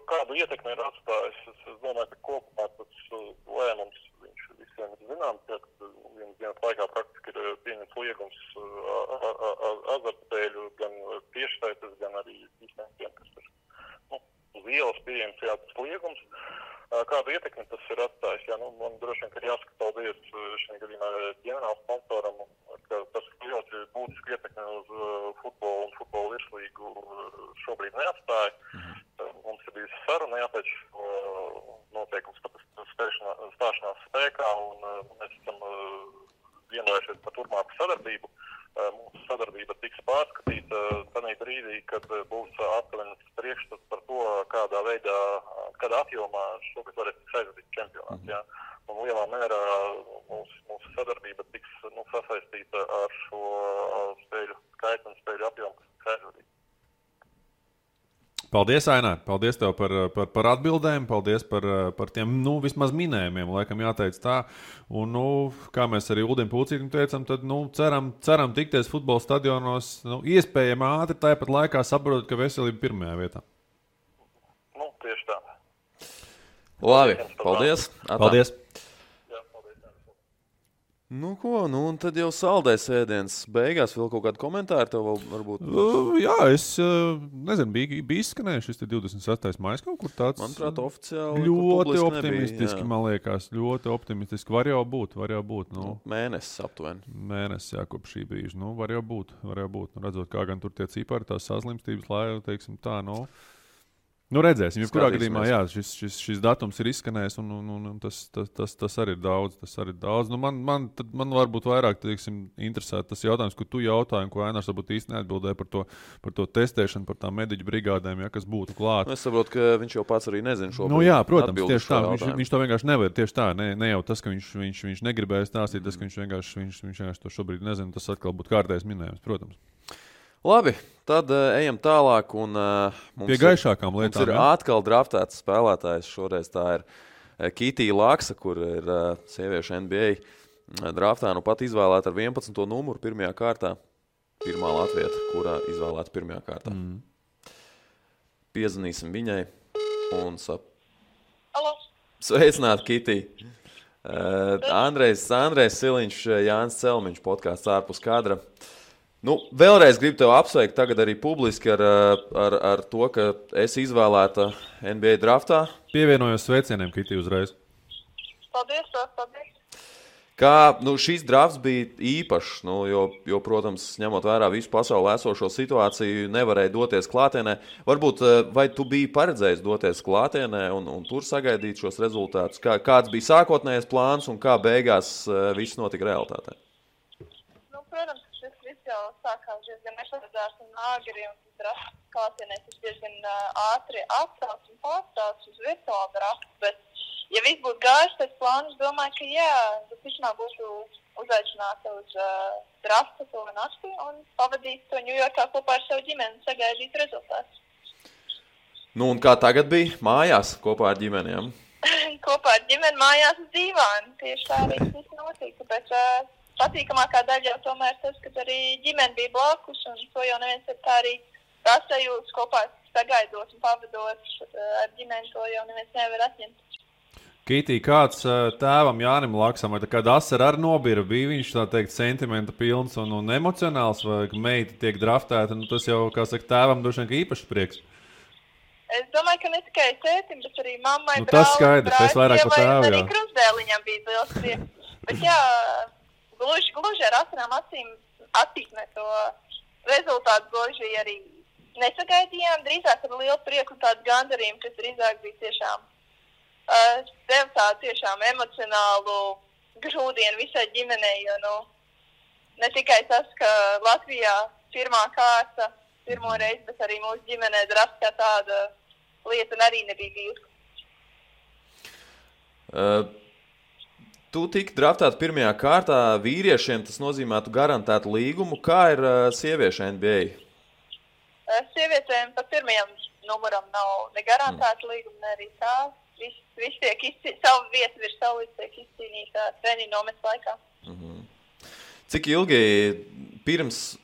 Kādu ietekmi ir atstājis? Es domāju, ka kopumā tas lēmums viņš visiem ir zināms, ka vienas dienas laikā praktiski ir pieņemts liegums azartspēļu gan tiešsaites, gan arī visiem, kas ir uz ielas pieejams tas liegums. Kādu ietekmi tas ir atstājis? Man droši vien, ka ir jāsaka paldies šajā gadījumā ģenerāla sponsoram, ka tas ļoti būtiski ietekmi uz futbolu un futbola virslīgu šobrīd neatstāja. Mums ir bijusi saruna pēc noteikums stāšanās spēkā, un mēs esam vienojušies par turpmāku sadarbību. Mūsu sadarbība tiks pārskatīta tādā brīdī, kad būs aptuvenis priekšstats par to, kādā veidā, kādā apjomā šogad varēs tikt aizvadīt čempionāts. Un lielā mērā mūsu sadarbība tiks sasaistīta ar šo spēļu skaitu un spēļu apjomu, kas tiks aizvadīt. Paldies, Ainār. Paldies tev par atbildēm, paldies par tiem, vismaz minējumiem, laikam jāteic tā. Un, kā mēs arī Uldim Pūcītim teicam, tad, ceram tikties futbola stadionos, iespējami ātri, tāpat laikā saprotot, ka veselība pirmajā vietā. Tieši tā. Labi, paldies. Paldies. Un tad jau saldais ēdiens beigās. Vēl kaut kādu komentāru tev varbūt? Jā, es nezinu, bija izskanējuši šis 26. maijs kaut kur tāds. Manuprāt, oficiāli ļoti optimistiski, nebija, man liekas. Ļoti optimistiski. Var jau būt. Mēnesis aptuveni. Mēnesis, kopš šī brīža. Var jau būt. Redzot, kā gan tur tie cipari, tās saslimstības, lai, teiksim tā, redzēsim. Jebkurā gadījumā, šis datums ir izskanējis, un tas arī ir daudz. Man varbūt vairāk, interesē tas jautājums, ko tu jautāji, un ko Ainārs varbūt īsti neatbildēja par to testēšanu, par tām mediķu brigādēm, kas būtu klāt. Es saprotu, ka viņš jau pats arī nezina šobrīd. Protams, tieši tā. Viņš to vienkārši nevar. Tieši tā, ne jau tas, ka viņš negribēja stāstīt, tas, ka viņš vienkārši to šobrīd nezina, tas atkal būtu kārtējs minējums, protams. Labi, tad ejam tālāk. Pie gaišākām lietām. Mums ir atkal draftēts spēlētājs. Šoreiz tā ir Kitija Laksa, kur ir sieviešu NBA draftā. Pat izvēlēta ar 11. numuru pirmajā kārtā. Pirmā latvieta, kurā izvēlēta pirmajā kārtā. Piezvanīsim viņai un sveicināt Kitiju. Andrejs Siliņš, Jānis Celmiņš, podkāsts ārpus kadra. Vēlreiz gribu tev apsveikt tagad arī publiski ar to, ka esi izvēlēta NBA draftā. Pievienojos sveicieniem, Kitija, uzreiz. Paldies. Kā šīs drafts bija īpašs, jo, protams, ņemot vērā visu pasaulē esošo situāciju, nevarēja doties klātienē. Varbūt, vai tu biji paredzējis doties klātienē un tur sagaidīt šos rezultātus? Kāds bija sākotnējais plāns un kā beigās viss notika realitātē? Protams, šis viss jau jau sākās diezgan nesadarbs un āgri, un drafts klātienē tas diezgan ātri atstāts un pārstāts uz virtuālu draftu, bet, ja viss būtu gājis pēc plāna, es domāju, ka jā, tas vismaz būtu uzaicināta uz draftu to nakti un pavadīt to Ņujorkā kopā ar savu ģimeni un sagaidīt rezultātus. Nu, un kā tagad bija mājās kopā ar ģimenēm? Kopā ar ģimeni mājās uz dīvānu. Tieši tā arī viss notika, bet patīkamākā daļa jau tomēr tas, ka arī ģimene bija blakus, un to jau neviens ir tā arī sasajūtas kopā sagaidot un pavadot ar ģimeni, to jau neviens nevar atņemt. Kitī, kāds tēvam Jānim Laksam, vai tā kāda asara ar nobira, bija viņš tā teikt sentimenta pilns un emocionāls, vai meita tiek draftēta, nu tas jau, kā saka, tēvam droši vien īpašs prieks. Es domāju, ka ne tikai tētim, bet arī mammai, nu, tas skaidrs, es vairāk par tēvu, jā. Arī krustdēliņam bija liels prieks. Bet jā, gluži ar asarām acīm attīkne to rezultātu gluži arī nesagaidījām, drīzāk ar lielu prieku un tādu gandarījumu, kas drīzāk bija tiešām tev tādu tiešām emocionālu grūdienu visai ģimenei, jo, nu, ne tikai tas, ka Latvijā pirmā kārta, pirmo reizi, bet arī mūsu ģimenē drafts kā tāda lieta arī nebija bijusi. Tu tiki draftēta pirmajā kārtā, vīriešiem tas nozīmētu garantētu līgumu. Kā ir sieviešu NBA? Sievietēm par pirmajam numuram nav ne garantēta līguma, ne arī tā. Viss tiek savu vietu virs savu līdz tiek izcīnīta treniņu nometas laikā. Cik ilgi pirms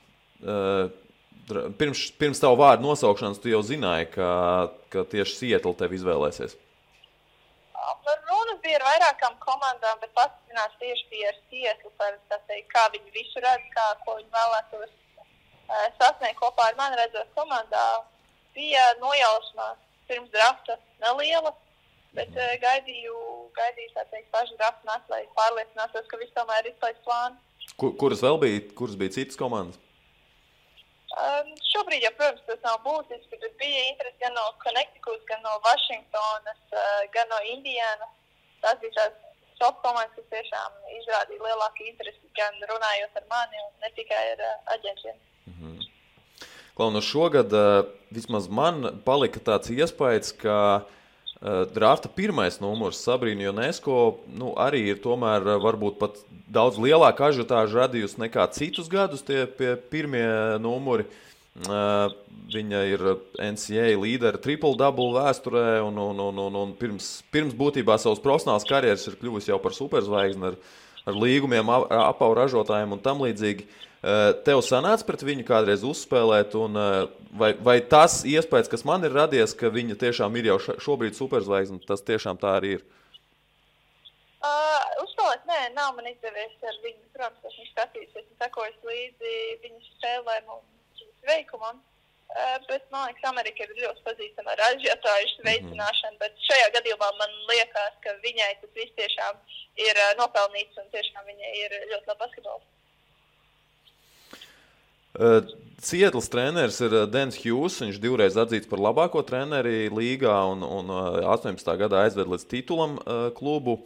tavu vārdu nosaukšanas tu jau zināji, ka tieši Seattle tevi izvēlēsies? Runas bija ar vairākām komandām, bet pastiprināts tieši bija ar Seattle par teikt, kā viņi visu redz, ko viņi vēlētos sasniegt kopā ar mani redzot komandā. Bija nojausmās pirms drafta neliela, bet gaidīju tā teikt, pašu draftu nākt, lai pārliecinātos, ka viss tomēr ir izpēc plānu. Kuras bija citas komandas? Šobrīd, ja, protams, tas nav būtiski, bet bija interesi gan no Connecticut, gan no Vašingtonas, gan no Indianas. Tās bija tās top komandas, kas tiešām izrādīja lielāku interesi, gan runājot ar mani un ne tikai ar aģentiem. Klau, no šogad vismaz man palika tāds iespējas, ka drafta pirmais numurs Sabrina Ionesco arī ir tomēr varbūt pat daudz lielāka ažiotāža radījusi nekā citus gadus tie pirmie numuri. Viņa ir NCAA līdera triple-double vēsturē un pirms būtībā savas profesionālas karjeras ir kļuvusi jau par superzvaigzni ar līgumiem, apavu ražotājiem un tam līdzīgi. Tev sanāca pret viņu kādreiz uzspēlēt, un vai tas iespējas, kas man ir radies, ka viņa tiešām ir jau šobrīd superzvaigzne, tas tiešām tā arī ir? Uzspēlēt, nē, nav man izdevies ar viņu, protams, esmu skatījusies un sekojas līdzi viņas spēlēm un viņas veikumam, bet man liekas, Amerika ir ļoti pazīstama ar ažiotāžu veicināšanu, bet šajā gadījumā man liekas, ka viņai tas viss tiešām ir nopelnīts un tiešām viņa ir ļoti labi basketbols. Seattles treneris ir Dens Hughes, viņš divreiz atzīts par labāko treneri līgā un 18. gadā aizved līdz titulam klubu.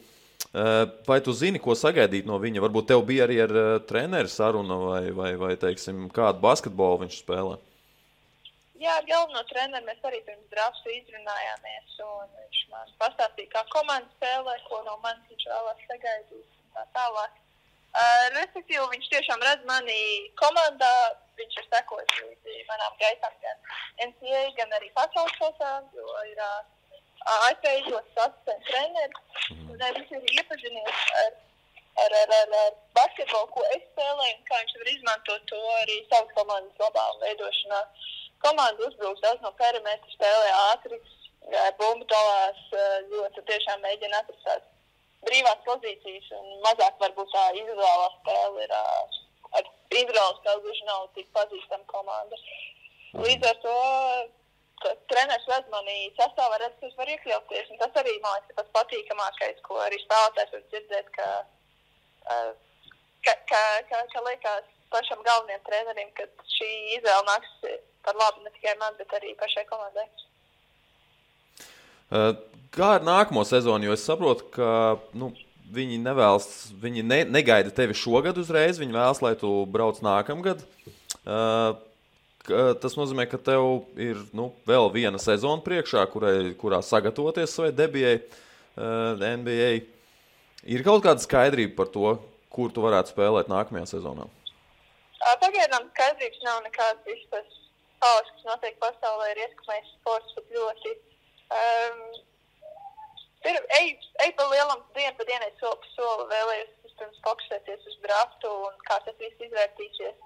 Vai tu zini, ko sagaidīt no viņa? Varbūt tev bija arī ar treneri saruna vai teiksim, kādu basketbolu viņš spēlē? Jā, ar galveno treneri mēs arī pirms drafta izrunājāmies, un viņš man pastāstīja, kā komanda spēlē, ko no manis viņš vēlās sagaidīt un tā tālāk. Respektīvi, viņš tiešām redz mani komandā, viņš ir sekojis līdzi manām gaitām gan NCAA, gan arī pasaules kausā, jo ir ASV izlases asistents treneris. Viņš ir iepazinies ar basketbolu, ko es spēlēju, un kā viņš var izmantot to arī savas komandas labā veidošanā. Komanda uzbrūks daudz no perimetra, spēlē ātri, bumbu dalās, ļoti tiešām mēģina atrast brīvās pozīcijas un mazāk varbūt tā individuālā spēle ir ar individuālu spēli gluži nav tik pazīstama komanda. Līdz ar to, ka treneris redz mani sastāvā, redz, ka es varu iekļauties, un tas arī, man liekas, pats patīkamākais, ko arī spēlētājs var dzirdēt, ka liekas pašam galvenajam trenerim, ka šī izvēle nāks par labu ne tikai man, bet arī pašai komandai. Kā ar nākamo sezonu, jo es saprotu, ka viņi nevēlas, viņi negaida tevi šogad uzreiz, viņi vēlas, lai tu brauc nākamgad. Tas nozīmē, ka tev ir vēl viena sezona priekšā, kurā sagatavoties savai debijai NBA. Ir kaut kāda skaidrība par to, kur tu varētu spēlēt nākamajā sezonā? Pagaidām skaidrības nav nekāds. Viss tas haoss, kas notiek pasaulē, ir ietekmējis sports pat ļoti. Ej pa lielam dienu pa dienai soli pa soli, vēlējos pirms fokusēties uz draftu un kā tas viss izvērtīsies.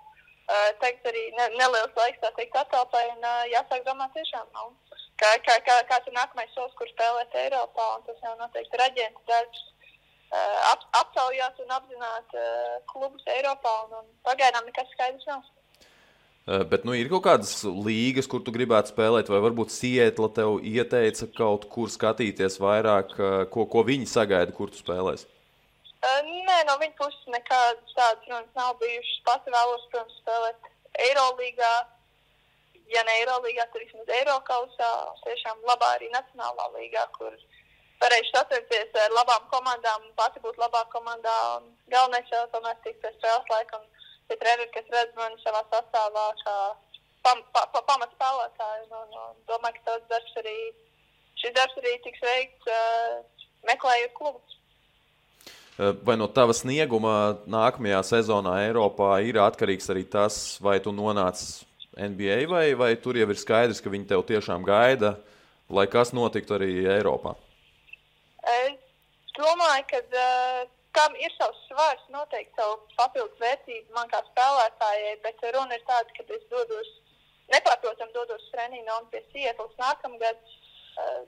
Tagad arī neliels laiks, tā teikt, atalpai un jāsāk domāt tiešām, kāds ir nākamais solis, kur spēlēt Eiropā, un tas jau noteikti ir aģentu darbs. Aptaujāt un apzināt klubus Eiropā, un pagaidām nekas skaidrs nav. Bet ir kaut kādas līgas, kur tu gribētu spēlēt, vai varbūt Seattle tev ieteica kaut kur skatīties vairāk, ko viņi sagaida, kur tu spēlēsi? Nē, no viņa puses nekādas tādas runas nav bijušas. Pati vēlos, protams, spēlēt Eirolīgā. Ja ne Eirolīgā, tad vismaz Eirokausā, tiešām labā arī Nacionālā līgā, kur varēšu satikties ar labām komandām, pati būt labā komandā. Un galvenais jau tomēr tikt pēc spēles laika, un tie treneri, kas redz mani savā sastāvā, kā pamat spēlētāju. Domāju, ka šis darbs arī tiks veikts meklējot klubus. Vai no tava snieguma nākamajā sezonā Eiropā ir atkarīgs arī tas, vai tu nonāc NBA, vai tur jau ir skaidrs, ka viņi tev tiešām gaida, lai kas notiktu arī Eiropā? Es domāju, ka kam ir savs svars, noteikti savu papildus vērtību man kā spēlētājai, bet runa ir tāda, ka es nepārprotam dodos treniņu un pie Seattles nākamgad.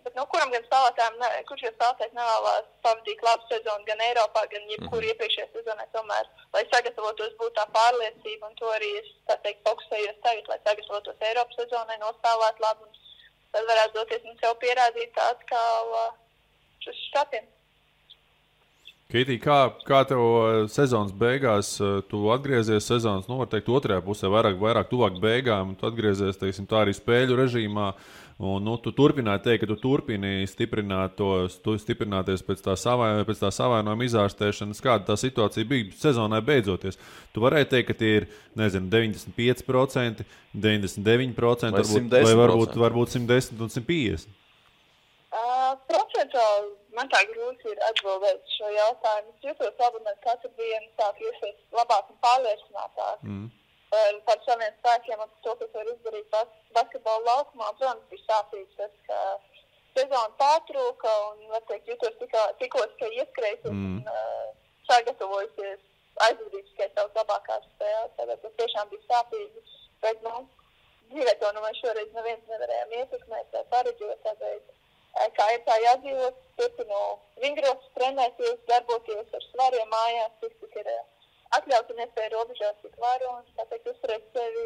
Bet kuram gan spēlētājiem, kurš jau spēlētājs nevēlās pavadīt labu sezonu gan Eiropā, gan jebkur iepriekšējā sezonā tomēr, lai sagatavotos būt tā pārliecība, un to arī es, tā teikt, fokusējos tagad, lai sagatavotos Eiropas sezonai, nospēlēt labu, un tad varētu doties un sev pierādīt atkal uz štatiem. Keitī, kā tev sezonas beigās, tu atgriezies sezonas, var teikt, otrajā pusē, vairāk tuvāk beigām, tu atgriezies, teiksim, tā arī spēļu režīmā, un tu turpināji teikt, ka tu turpini stiprināties pēc tā savainojuma izārstēšanas, kāda tā situācija bija sezonai beidzoties. Tu varēji teikt, ka tie ir, 95%, 99%, vai varbūt 110 un 150%? Procentuāli man tā grūti ir atbildēt šo jautājumu. Es jūtos labi, un katru dienu sāk iesies labāk un pārliecinātāk par saviem spēkiem un par to, kas var izdarīt basketbola laukumā. Protams, bija sāpīgi tas, ka sezona pārtrūka un, var teikt, jūtos tikos, ka ieskrējis un sagatavojusies aizvadīt tikai savas labākās spēles. Tāpēc tas tiešām bija sāpīgi, bet, dzīvē to mēs šoreiz neviens nevarējām ietekmēt vai pareģot, tāpēc kā ir tā jādzīvot, turpinu vingrot, trenēties, darboties ar svariem mājās, cik ir atļaut un iespēja robežās, cik varu, un tā teikt, uzturēt sevi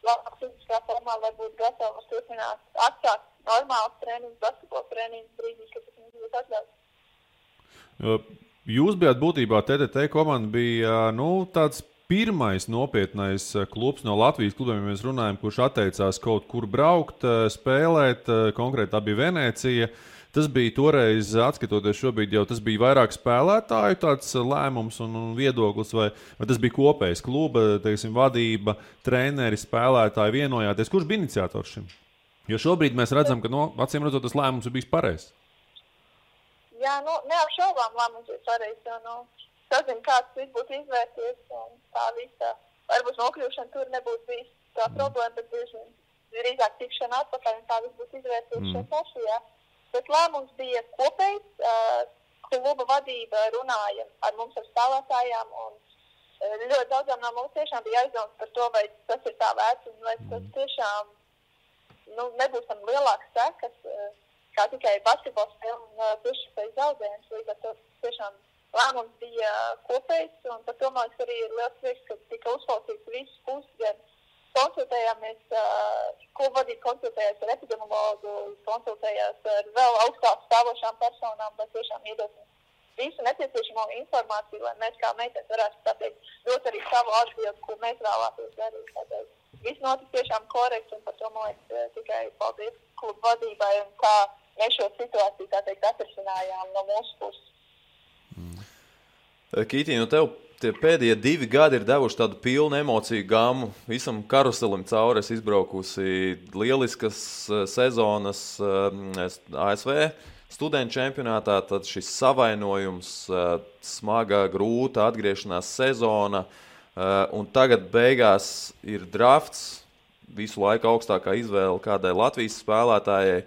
labāk fiziskā formā, lai būtu gatavi turpināt atsākt normāls treniņus, basketbola treniņus brīdī, kad tas mums būtu atļauts. Jūs bijāt būtībā, TTT komanda bija, tāds pirmais nopietnais klubs no Latvijas klubiem, ja mēs runājam, kurš atteicās kaut kur braukt, spēlēt, konkrēti tā bija Venecija. Tas bija toreiz, atskatoties šobrīd, jau tas bija vairāk spēlētāju tāds lēmums un viedoklis, vai tas bija kopējs kluba, teiksim, vadība, treneri, spēlētāji vienojāties. Kurš bija iniciators šim? Jo šobrīd mēs redzam, ka, acīm redzot, tas lēmums ir bijis pareizs. Jā, neapšaubām lēmums ir pareizs, jo, sazinu, kāds viss būtu izvērties, un tā visa, varbūt nokļūšana tur nebūtu bijis tā problēma, bet drīzāk tikšana atpakaļ, un tā viss būtu izvērties šeit pašajā. Bet lēmums bija kopējs, kluba vadība runāja ar mums ar spēlētājām, un ļoti daudzām no mums tiešām bija aizdomas par to, vai tas ir tā vērts, un vai tas tiešām nebūs tam lielāks sekas, kā tikai basketbola spēle un priekšspējas zaudējums, līdz ar to tiešām lēmums bija kopējs, un par to man arī ir liels prieks, ka tika uzklausīts visas puses, gan konsultējāmies, kluba vadība konsultējās ar epidemiologu, konsultējās ar vēl augstāk stāvošām personām, lai tiešām iedosim visu nepieciešamo informāciju, lai mēs kā meitenes varētu pateikt, dot arī savu atbildi, ko mēs vēlētos darīt. Tāpēc viss notika tiešām korekts, un par to man liekas tikai paldies kluba vadībai, un kā mēs šo situāciju, tā teikt, atrisinājām no mūsu puses. Kītī, nu tev tie pēdējie 2 gadi ir devuši tādu pilnu emociju gammu. Visam karuselim cauri es izbraukusi lieliskas sezonas ASV studentu čempionātā, tad šis savainojums, smaga, grūta atgriešanās sezona, un tagad beigās ir drafts, visu laiku augstākā izvēle kādai Latvijas spēlētājai.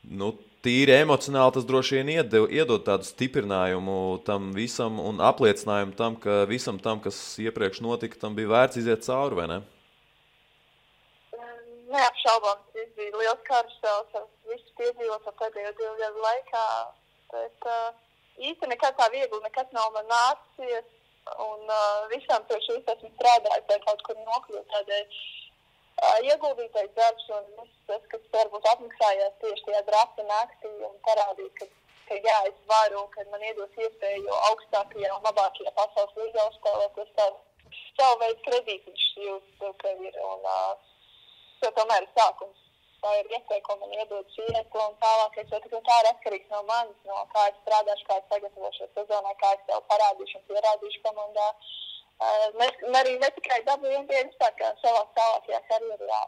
Nu, tīri emocionāli tas droši vien iedod tādu stiprinājumu tam visam un apliecinājumu tam, ka visam tam, kas iepriekš notika, tam bija vērts iziet cauri, vai ne? Neapšaubām, tas bija liels karusels, visu piedzīvot pēdējo 2 gadu laikā, bet īsti nekad tā viegli, nekad nav man nācies, un visām pie šīs esmu strādājis, lai kaut kur nokļūt tādēļ. Ieguldītais darbs un viss tas, kas varbūt apmaksājās tieši tajā drafta naktī un parādīt, ka jā, es varu, ka man iedos iespēju augstākajā un labākajā pasaules līgā uzspēlēt, tas savu veidu kredītiņš jūt, ka ir, un tas tomēr ir sākums. Tā ir iespēja, ko man iedod šī iespēja un tālākais, jo tā ir atkarīgs no manis, no kā es strādāšu, kā es sagatavošu sezonai, kā es tev parādīšu un pierādīšu komandā. Arī ne tikai NBA kā savā tālākajā karjerā.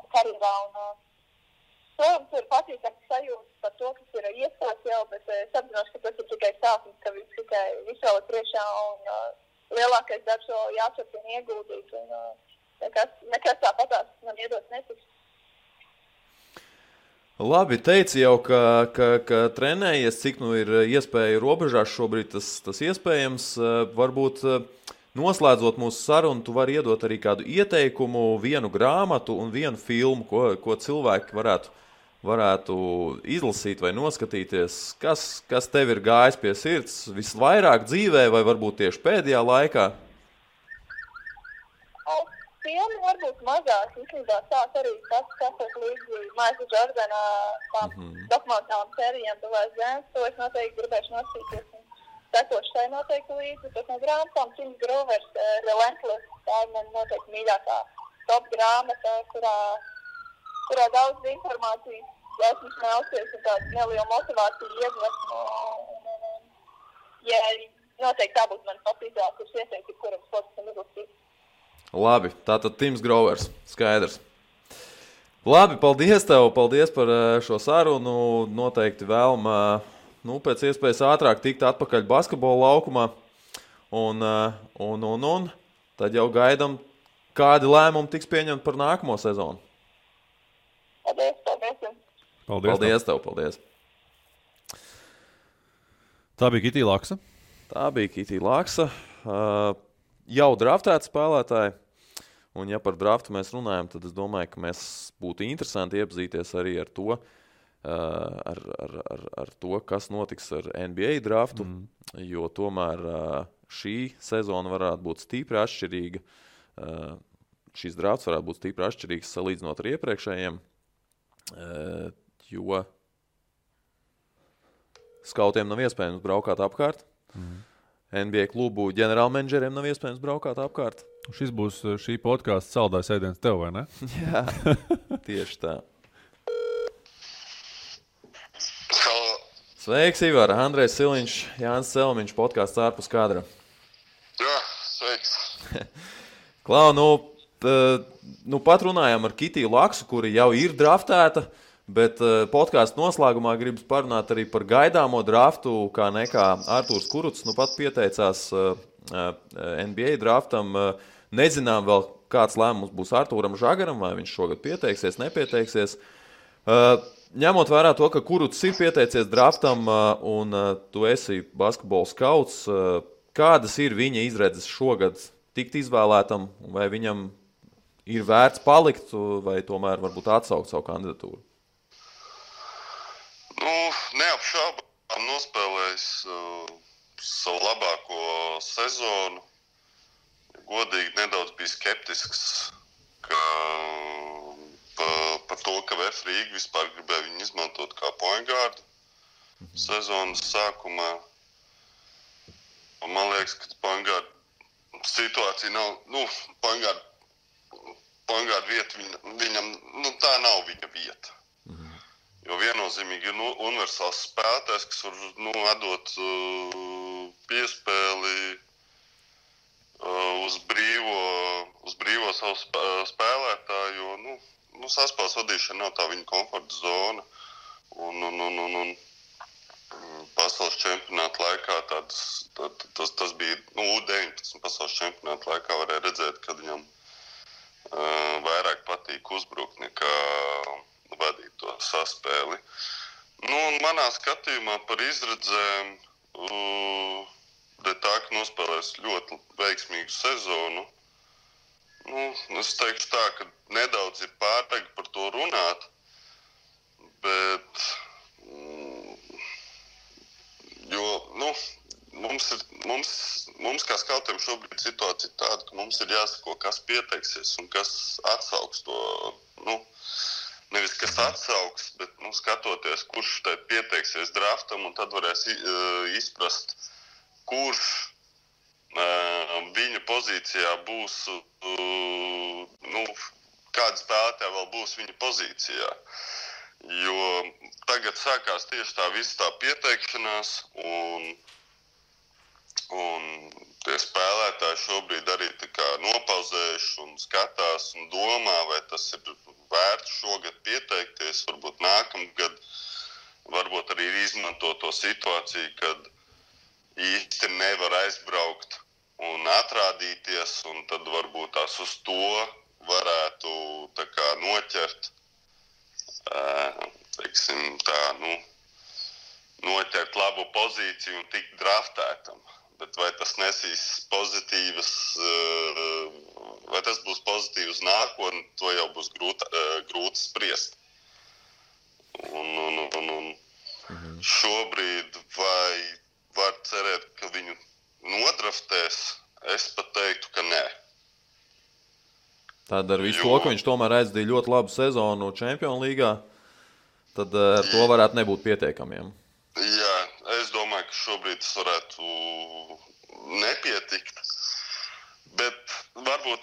Protams, ir patīkams sajūta par to, kas ir iestāts jau, bet es apzināšu, ka tas ir tikai sākums, ka viss vēl ir priekšā un lielākais darbs vēl jāturpina ieguldīt. Nekas tāpatās man iedots netiks. Labi, teici jau, ka trenējies, cik nu ir iespēja robežās šobrīd tas iespējams. Varbūt noslēdzot mūsu sarunu, tu vari iedot arī kādu ieteikumu, vienu grāmatu un vienu filmu, ko cilvēki varētu izlasīt vai noskatīties. Kas tev ir gājis pie sirds visvairāk dzīvē vai varbūt tieši pēdējā laikā? Filmi varbūt mazāk, īstenībā sāk arī skatot līdzi Maikla Džordana dokumentālām sērijām Tuvais zemes, to es noteikti gribēšu noskatīties un sekošu tai noteikti līdzi, bet no grāmatām Tims Grovers, Relentless, tā ir man noteikti mīļākā top grāmata, kurā daudz informācijas esmu smelsies un tādu nelielu motivāciju iedvesmu. Ja noteikti tā būtu man top izvēle, kurš ieteikti, kuram sportistam izlasīt. Labi, tātad Tims Grovers, skaidrs. Labi, paldies tev, paldies par šo sarunu. Noteikti vēlma pēc iespējas ātrāk tikt atpakaļ basketbola laukumā. Un tad jau gaidam, kādi lēmumi tiks pieņemti par nākamo sezonu. Paldies tev, paldies. Tā bija Kitī Laksa. Jau draftēti spēlētāji, un ja par draftu mēs runājam, tad es domāju, ka mēs būtu interesanti iepazīties arī ar to, ar to, kas notiks ar NBA draftu, jo tomēr šī sezona varētu būt stipri atšķirīga. Šis drafts varētu būt stipri atšķirīgs salīdzinot ar iepriekšējiem, jo skautiem nav iespējams braukāt apkārt. NBA klubu ģenerālmenedžeriem nav iespējams braukāt apkārt. Šis būs šī podkāsta saldais ēdiens tev, vai ne? Jā, tieši tā. Sveiks, Ivar! Andrejs Siliņš, Jānis Celmiņš, podkāsts ārpus kadra. Jā, sveiks! Klau, pat runājām ar Kitiju Laksu, kuri jau ir draftēta, bet podkāstu noslēgumā gribas parunāt arī par gaidāmo draftu, kā nekā Artūrs Kurucs pat pieteicās NBA draftam. Nezinām vēl, kāds lēmums būs Artūram Žagaram, vai viņš šogad pieteiksies, nepieteiksies. Ņemot vērā to, ka Kurucs ir pieteicies draftam un tu esi basketbola skauts, kādas ir viņa izredzes šogad tikt izvēlētam, vai viņam ir vērts palikt, vai tomēr varbūt atsaukt savu kandidatūru? Neapšaubām nospēlējis savu labāko sezonu. Godīgi nedaudz bija skeptisks par to, ka VF Rīga vispār gribēja viņu izmantot kā point guardu sezonas sākumā. Un man liekas, ka point guard situācija nav, point guard vieta viņam, tā nav viņa vieta. Jo viennozīmīgi ir universāls spēlētājs, kas var atdot piespēli uz brīvo savu spēlētāju, jo saspēles vadīšana nav tā viņa komforta zona. Un pasaules čempionāta laikā tas bija U19 pasaules čempionāta laikā varēja redzēt, kad viņam vairāk patīk uzbrukt nekā vadīt to saspēli. Un manā skatījumā par izredzēm tā, ka nospēlēs ļoti veiksmīgu sezonu. Es teikšu tā, ka nedaudz ir pārāk par to runāt, bet jo, mums kā skautiem šobrīd situācija tāda, ka mums ir jāsako, kas pieteiksies un kas atsauks to, nevis kas atsauks, bet skatoties, kurš tai pieteiksies draftam, un tad varēs izprast, kurš viņa pozīcijā būs, kāda spēlētāja vēl būs viņa pozīcijā. Jo tagad sākās tieši tā visa tā pieteikšanās, un tie spēlētāji šobrīd arī tā kā nopauzējuši un skatās un domā, vai tas ir vērts šogad pieteikties, varbūt nākamgad, varbūt arī izmanto to situāciju, kad īsti nevar aizbraukt un atrādīties, un tad varbūt tās uz to varētu tā kā noķert, teiksim tā, noķert labu pozīciju un tikt draftētam. Bet vai tas nesīs pozitīvas, vai tas būs pozitīvs nākotnē, to jau būs grūti spriest. Un šobrīd vai var cerēt, ka viņu nodraftēs, es pat teiktu, ka nē. Tad ar visu to, ka viņš tomēr aizdīja ļoti labu sezonu Čempionu līgā, tad ar to varētu nebūt pietiekamiem. Jā, es domāju, ka šobrīd tas varētu nepietikt, bet varbūt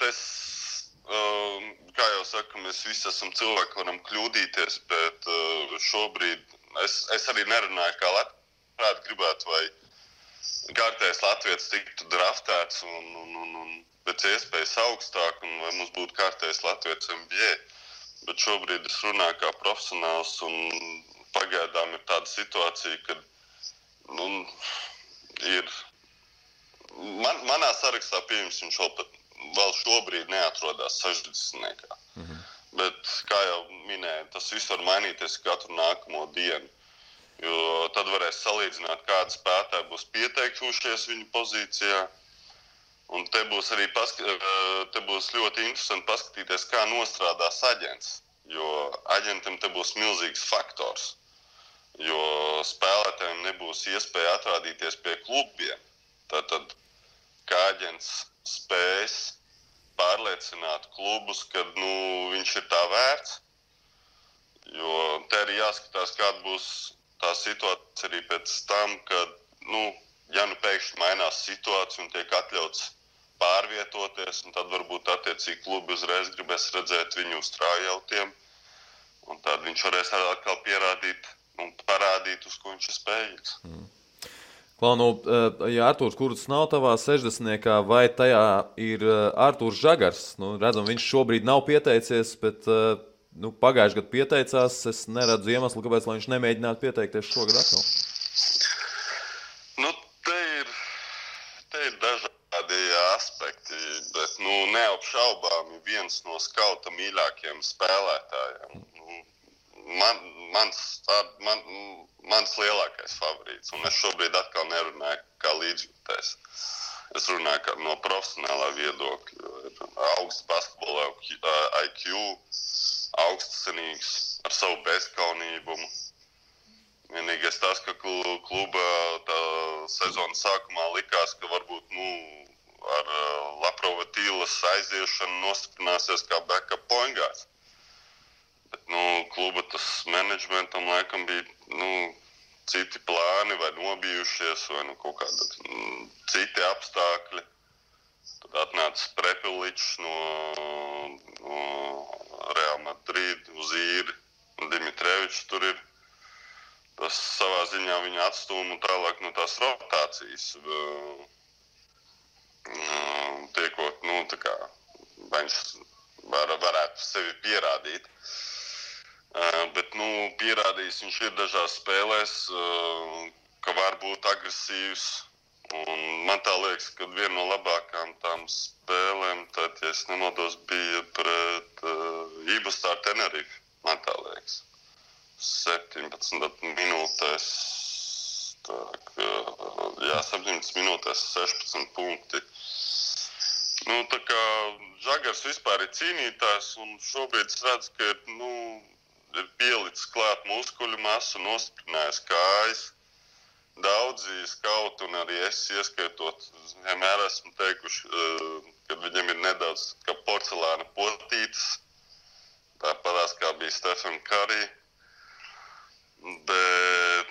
kā jau saku, mēs visi esam cilvēki, varam kļūdīties, bet šobrīd es arī nerunāju, kā labprāt gribētu, vai kārtējs latvietis tiktu draftēts un pēc iespējas augstāk, un vai mums būtu kārtējs latvietis NBA. Bet šobrīd es runāju kā profesionāls, un pagaidām ir tāda situācija, kad ir manā sarakstā pieņems viņš vēl šobrīd neatrodās 60. Bet, kā jau minēju, tas viss var mainīties katru nākamo dienu. Jo tad varēs salīdzināt, kādi spēlētāji būs pieteikušies viņu pozīcijā. Un te būs arī te būs ļoti interesanti paskatīties, kā nostrādās aģents. Jo aģentam te būs milzīgs faktors. Jo spēlētājiem nebūs iespēja atrādīties pie klubiem. Tātad, kā aģents spēs pārliecināt klubus, kad viņš ir tā vērts. Jo te arī jāskatās, kāda būs tā situācija arī pēc tam, kad, ja pēkšņi mainās situācija un tiek atļauts pārvietoties, un tad varbūt attiecīgi klubi uzreiz gribēs redzēt viņu uz trājautiem, un tad viņš varēs atkal pierādīt un parādīt, uz ko viņš ir spējīgs. Klau, ja Artūrs Kurts nav tavā 60. vai tajā ir Artūrs Žagars? Redzam, viņš šobrīd nav pieteicies, bet pagājušajā gadā pieteicās. Es neredzu iemeslu, kāpēc viņš nemēģinātu pieteikties šogad atkal. Te ir dažādi aspekti, bet neapšaubāmi viens no skauta mīļākajiem spēlētājiem. Mans lielākais favorīts, un es šobrīd atkal nerunāju kā līdzjūtējs. Es runāju no profesionālā viedokļa. Ir augsts basketbola IQ, augstcenīgs, ar savu bezkaunībumu. Vienīgais tas, ka kluba tā sezonas sākumā likās, ka varbūt ar Laprova Tīlas aiziešanu nostiprināsies kā backup point guards. Bet kluba tas menedžmentam laikam bija citi plāni vai nobijušies vai kaut kādi citi apstākļi. Tad atnāca Prepeličs no Real Madrid uz īri un Dimitrevičs tur ir. Tas savā ziņā viņa atstūma tālāk no tās rotācijas. liekot, tā kā viņš varētu sevi pierādīt. Bet, pierādījis viņš ir dažās spēlēs, ka var būt agresīvs. Un man tā liekas, ka viena no labākām tām spēlēm, tad, ja es nemaldos, bija pret Ibustāru Tenerife, man tā liekas. 17 minūtēs, 17 minūtēs 16 punkti. Tā kā Žagars vispār ir cīnītājs, un šobrīd es redzu, ka ir pielicis klāt muskuļu masu, nostiprinājis kājas. Daudzi skauti un arī es ieskaitot, vienmēr esmu teikuši, ka viņam ir nedaudz kā porcelāna potītes, tāpatās kā bija Stephen Curry, bet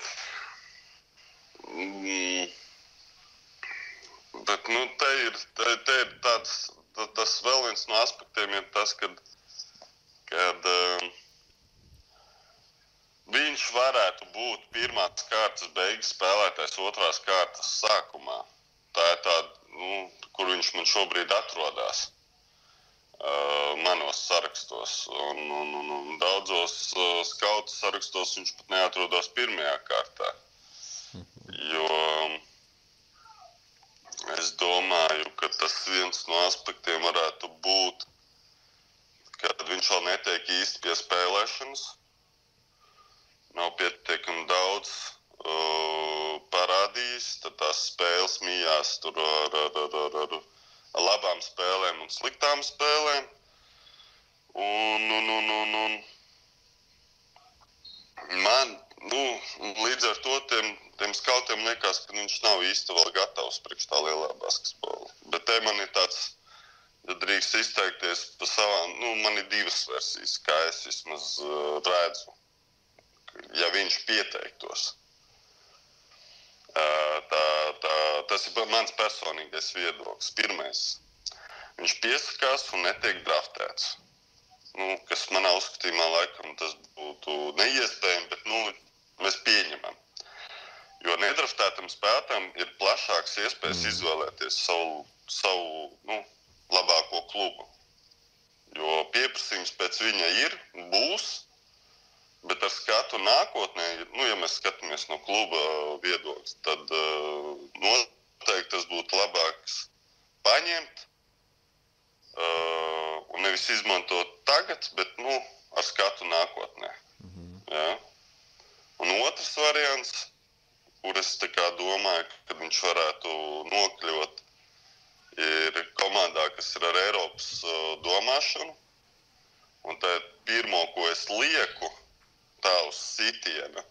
te ir tas vēl viens no aspektiem ir tas, kad viņš varētu būt pirmās kārtas beigas spēlētājs otrās kārtas sākumā. Tā ir tāda, kur viņš man šobrīd atrodas manos sarakstos. Un daudzos skautu sarakstos viņš pat neatrodas pirmajā kārtā. Jo es domāju, ka tas viens no aspektiem varētu būt, kad viņš vēl netiek īsti pie spēlēšanas. Nav pietiekami daudz parādījis, tad tās spēles mījās tur ar labām spēlēm un sliktām spēlēm. Un man, līdz ar to tiem skautiem liekas, ka viņš nav īsti vēl gatavs priekš tā lielā basketbola. Bet te man ir tāds, ja drīkst izteikties pa savām, man ir divas versijas, kā es vismaz redzu. Ja viņš pieteiktos. Tas ir mans personīgais viedoklis. Pirmais, viņš piesakās un netiek draftēts. Kas manā uzskatījumā laikam tas būtu neiespējami, bet mēs pieņemam. Jo nedraftētam spēlētājam ir plašāks iespējas izvēlēties savu labāko klubu. Jo pieprasījums pēc viņa būs, bet ar skatu nākotnē, ja mēs skatāmies no kluba viedokļa, tad noteikti tas būtu labāks paņemt un nevis izmantot tagad, bet ar skatu nākotnē. Ja? Un otrs variants, kur es domāju, ka viņš varētu nokļūt, ir komandā, kas ir ar Eiropas domāšanu. Un tā pirmo, ko es lieku, tā uz sitiena.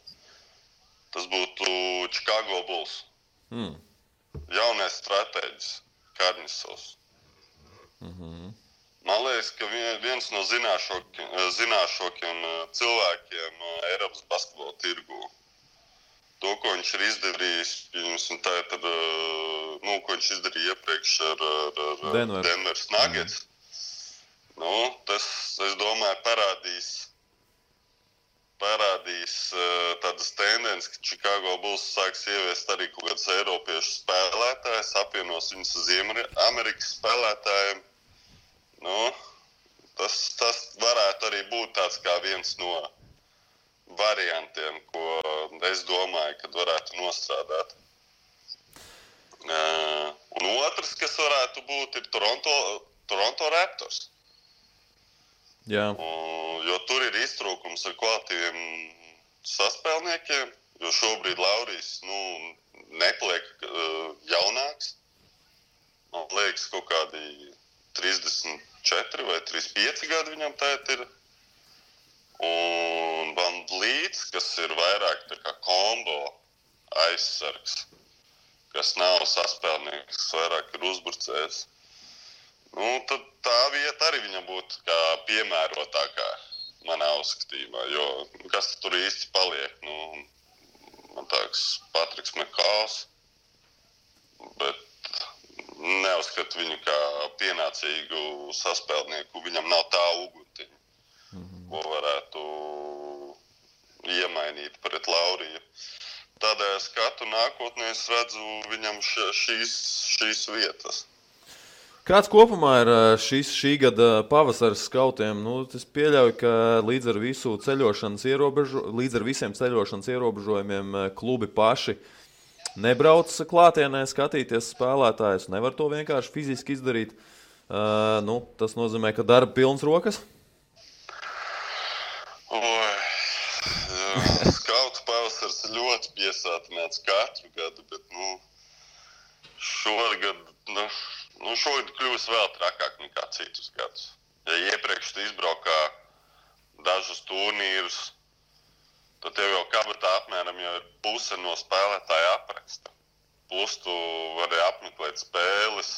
Tas būtu Chicago Bulls. Jaunais stratēģis, Karnisovs. Man liekas, ka viens no zināšākiem cilvēkiem Eiropas basketbola tirgū. To, ko viņš ir izdarījis, ko viņš izdarīja iepriekš ar Denveras Nuggets. Tas, es domāju, parādīs tādas tendences, ka Chicago Bulls sāks ieviest arī kaut kāds eiropiešu spēlētājs, apvienos viņus uz Amerikas spēlētājiem. Tas varētu arī būt tāds kā viens no variantiem, ko es domāju, kad varētu nostrādāt. Un otrs, kas varētu būt, ir Toronto Raptors. Jā. Jo tur ir iztrūkums ar kvalitīviem saspēlniekiem, jo šobrīd Laurijs nepaliek jaunāks. Man liekas, kaut kādi 34 vai 35 gadi viņam tēt ir. Un Van Vliets, kas ir vairāk tā kā kombo aizsargs, kas nav saspēlnieks, kas vairāk ir uzbrucējs. Tad tā vieta arī viņam būtu kā piemērotākā manā uzskatījumā, jo kas tur īsti paliek? Man tāks Patriks Mekāls, bet neuzskatu viņu kā pienācīgu saspēlnieku. Viņam nav tā uguntiņa, ko varētu iemainīt pret Lauriju. Tādēļ skatu nākotnē es redzu viņam šīs vietas. Kāds kopumā ir šī gada pavasaris skautiem? Es pieļauju, ka līdz ar visiem ceļošanas ierobežojumiem klubi paši nebrauc klātienē skatīties spēlētājus. Nevar to vienkārši fiziski izdarīt. Tas nozīmē, ka darba pilns rokas? Skautu pavasaris ļoti piesātināts katru gadu, bet šogad kļūs vēl trakāk nekā citus gadus. Ja iepriekš tu izbraukā dažus turnīrus, tad tev jau kabatā apmēram jau ir puse no spēlētāja apraksta. Plus tu vari apmeklēt spēles,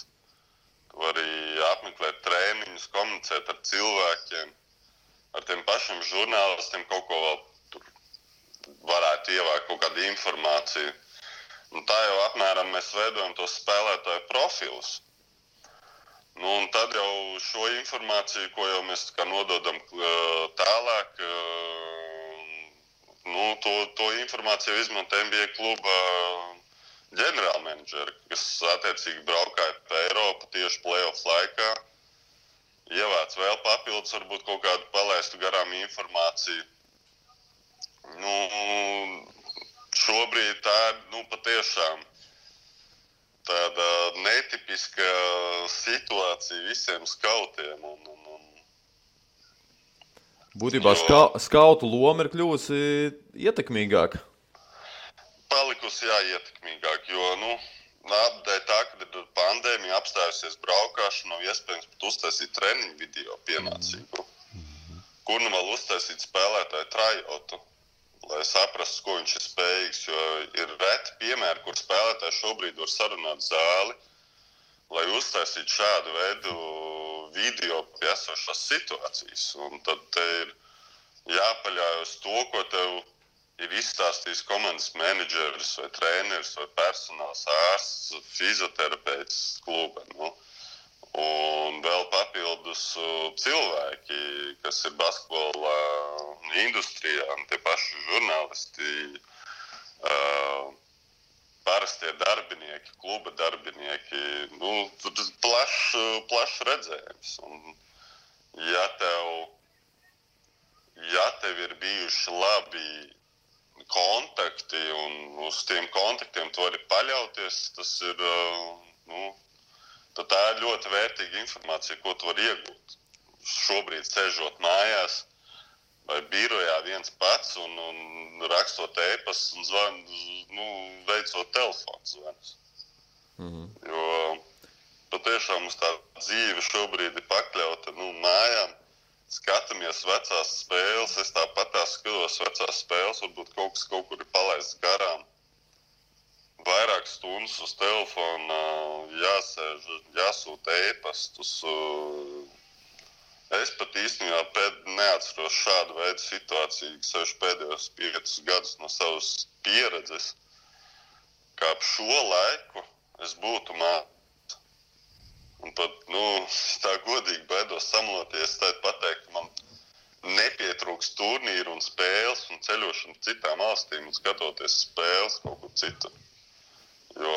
tu vari apmeklēt trēniņus, komunicēt ar cilvēkiem, ar tiem pašiem žurnālistiem kaut ko vēl tur varētu ievākt kaut kādu informāciju. Un tā jau apmēram mēs veidojam tos spēlētāju profilus. Un tad jau šo informāciju, ko jau mēs nododam tālāk, to informāciju izmanto NBA kluba ģenerālmenedžeri, kas attiecīgi braukāja pa Eiropu tieši play-off laikā, ievāc vēl papildus, varbūt kaut kādu palaistu garām informāciju. Šobrīd tā ir patiešām tāda netipiska situācija visiem skautiem. Būtībā skautu loma ir kļuvusi ietekmīgāka. Palikusi ietekmīgāk, jo dēļ tā, kad ir pandēmija apstājusies braukāšana, nav iespējams pat uztaisīt treniņu video pienācīgu. Kur vēl uztaisīt spēlētāju tryotu, lai saprastu, ko viņš ir spējīgs, jo ir reti piemēri, kur spēlētāji šobrīd var sarunāt zāli, lai uztaisītu šādu veidu video pie esošās situācijas. Un tad te ir jāpaļaujas to, ko tev ir izstāstījis komandas menedžeris vai treneris vai personāls ārsts, fizioterapeits kluba. Un vēl papildus cilvēki, kas ir basketbola industrijā, tie paši žurnālisti, parastie darbinieki, kluba darbinieki. Tur ir plašs redzējums. Un ja tev ir bijuši labi kontakti un uz tiem kontaktiem tu vari paļauties, tas ir, tad tā ir ļoti vērtīga informācija, ko tu vari iegūt. Šobrīd sēžot mājās vai birojā viens pats un rakstot e-pastus un veicot telefonu zvanus. Jo patiešām mums tā dzīve šobrīd ir pakļauta mājām. Skatāmies vecās spēles, es tāpat skatos vecās spēles, varbūt kaut kas kaut kur ir palaists garām. Vairāk stundas uz telefona, jāsēž, jāsūta e-pastus. Es pat īstenībā neatceros šādu veidu situāciju, kas pēdējos 5 gadus no savas pieredzes, kā ap šo laiku es būtu mācījis. Un pat, tā godīgi baidos samaloties, tad pateikt, ka man nepietrūks turnīru un spēles un ceļošana citām valstīm un skatoties spēles kaut kur citur. Jo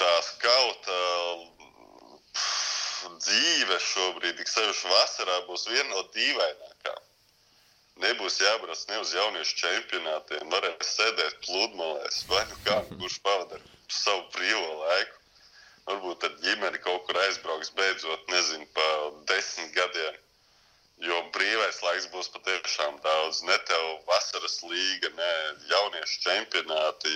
tā skauta dzīve šobrīd, tik sevišķi vasarā, būs viena no dīvainākām. Nebūs jābrauc ne uz jauniešu čempionātiem, varēs sēdēt pludmalēs, vai kurš pavadar savu brīvo laiku. Varbūt tad ģimeni kaut kur aizbrauks beidzot, nezinu, pa 10 gadiem, jo brīvais laiks būs patiešām daudz. Ne tev vasaras līga, ne jauniešu čempionāti.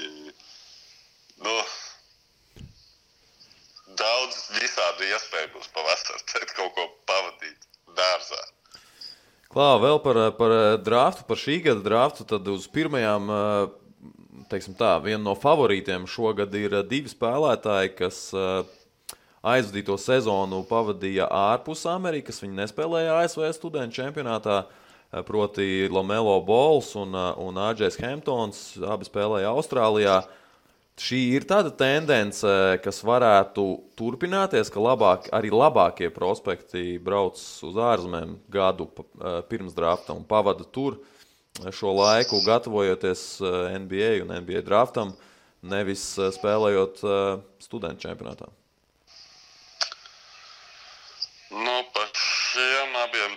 Daudz visādi iespēju būs pavasar, tad kaut ko pavadīt dārzā. Klā, vēl par draftu, par šī gada draftu, tad uz pirmajām, viena no favorītiem šogad ir 2 spēlētāji, kas aizvadīto sezonu pavadīja ārpus Amerikas. Viņi nespēlēja ASV studentu čempionātā, proti LaMelo Balls un AJs Hamptons, abi spēlēja Austrālijā. Šī ir tāda tendence, kas varētu turpināties, ka arī labākie prospekti brauc uz ārzemēm gadu pirms drafta un pavada tur šo laiku, gatavojoties NBA un NBA draftam, nevis spēlējot studentu čempionātā.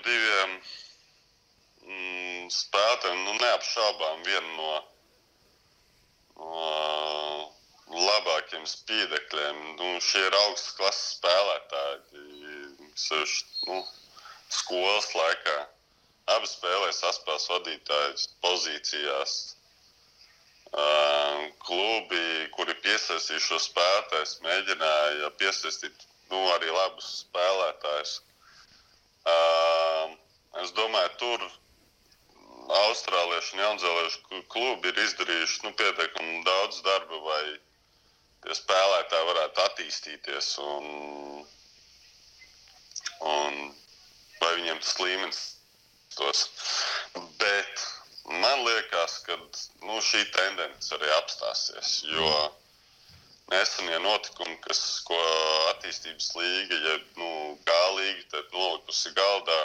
diviem spēlētājiem, neapšaubām vienu no labākiem spīdekļiem. Šie ir augstas klases spēlētāji, skolas laikā. Abi spēlē saspēles vadītājas pozīcijās. Klubi, kuri piesaistīja šo spēlētājus, mēģināja piesaistīt arī labus spēlētājus. Es domāju, tur austrāliešu un jaunzēliešu klubi ir izdarījuši pietiekami daudz darba, vai tie spēlētāji varētu attīstīties un vai viņiem tas līmenis tos. Bet man liekas, ka šī tendence arī apstāsies, jo nesenie notikumi, ko attīstības līga, G-līga tad nolikusi galdā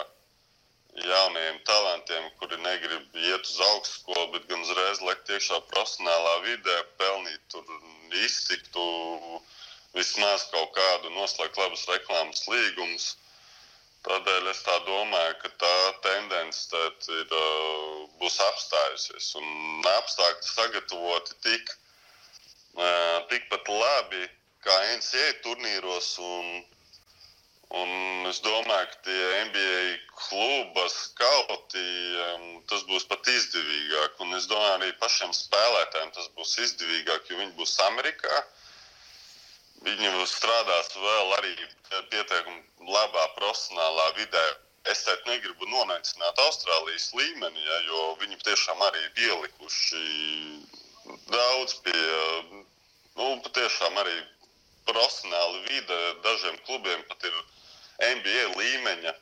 jaunajiem talantiem, kuri negrib iet uz augstskolu, bet gan uzreiz lekt iekšā profesionālā vidē, pelnīt tur iztiktu, vismaz kaut kādu noslēgt labus reklāmas līgumus. Tādēļ es tā domāju, ka tā tendence būs apstājusies un apstākļi sagatavoti tikpat labi kā NCAA turnīros un es domāju, ka tie NBA kluba skauti, tas būs pat izdevīgāk un es domāju arī pašiem spēlētājiem tas būs izdevīgāk, jo viņi būs Amerikā. Viņi strādās vēl arī pietiekami labā profesionālā vidē. Es teikt negribu nonaicināt Austrālijas līmeni, jo viņi tiešām arī ir ielikuši daudz pie, patiešām arī profesionāli vide. Dažiem klubiem pat ir NBA līmeņa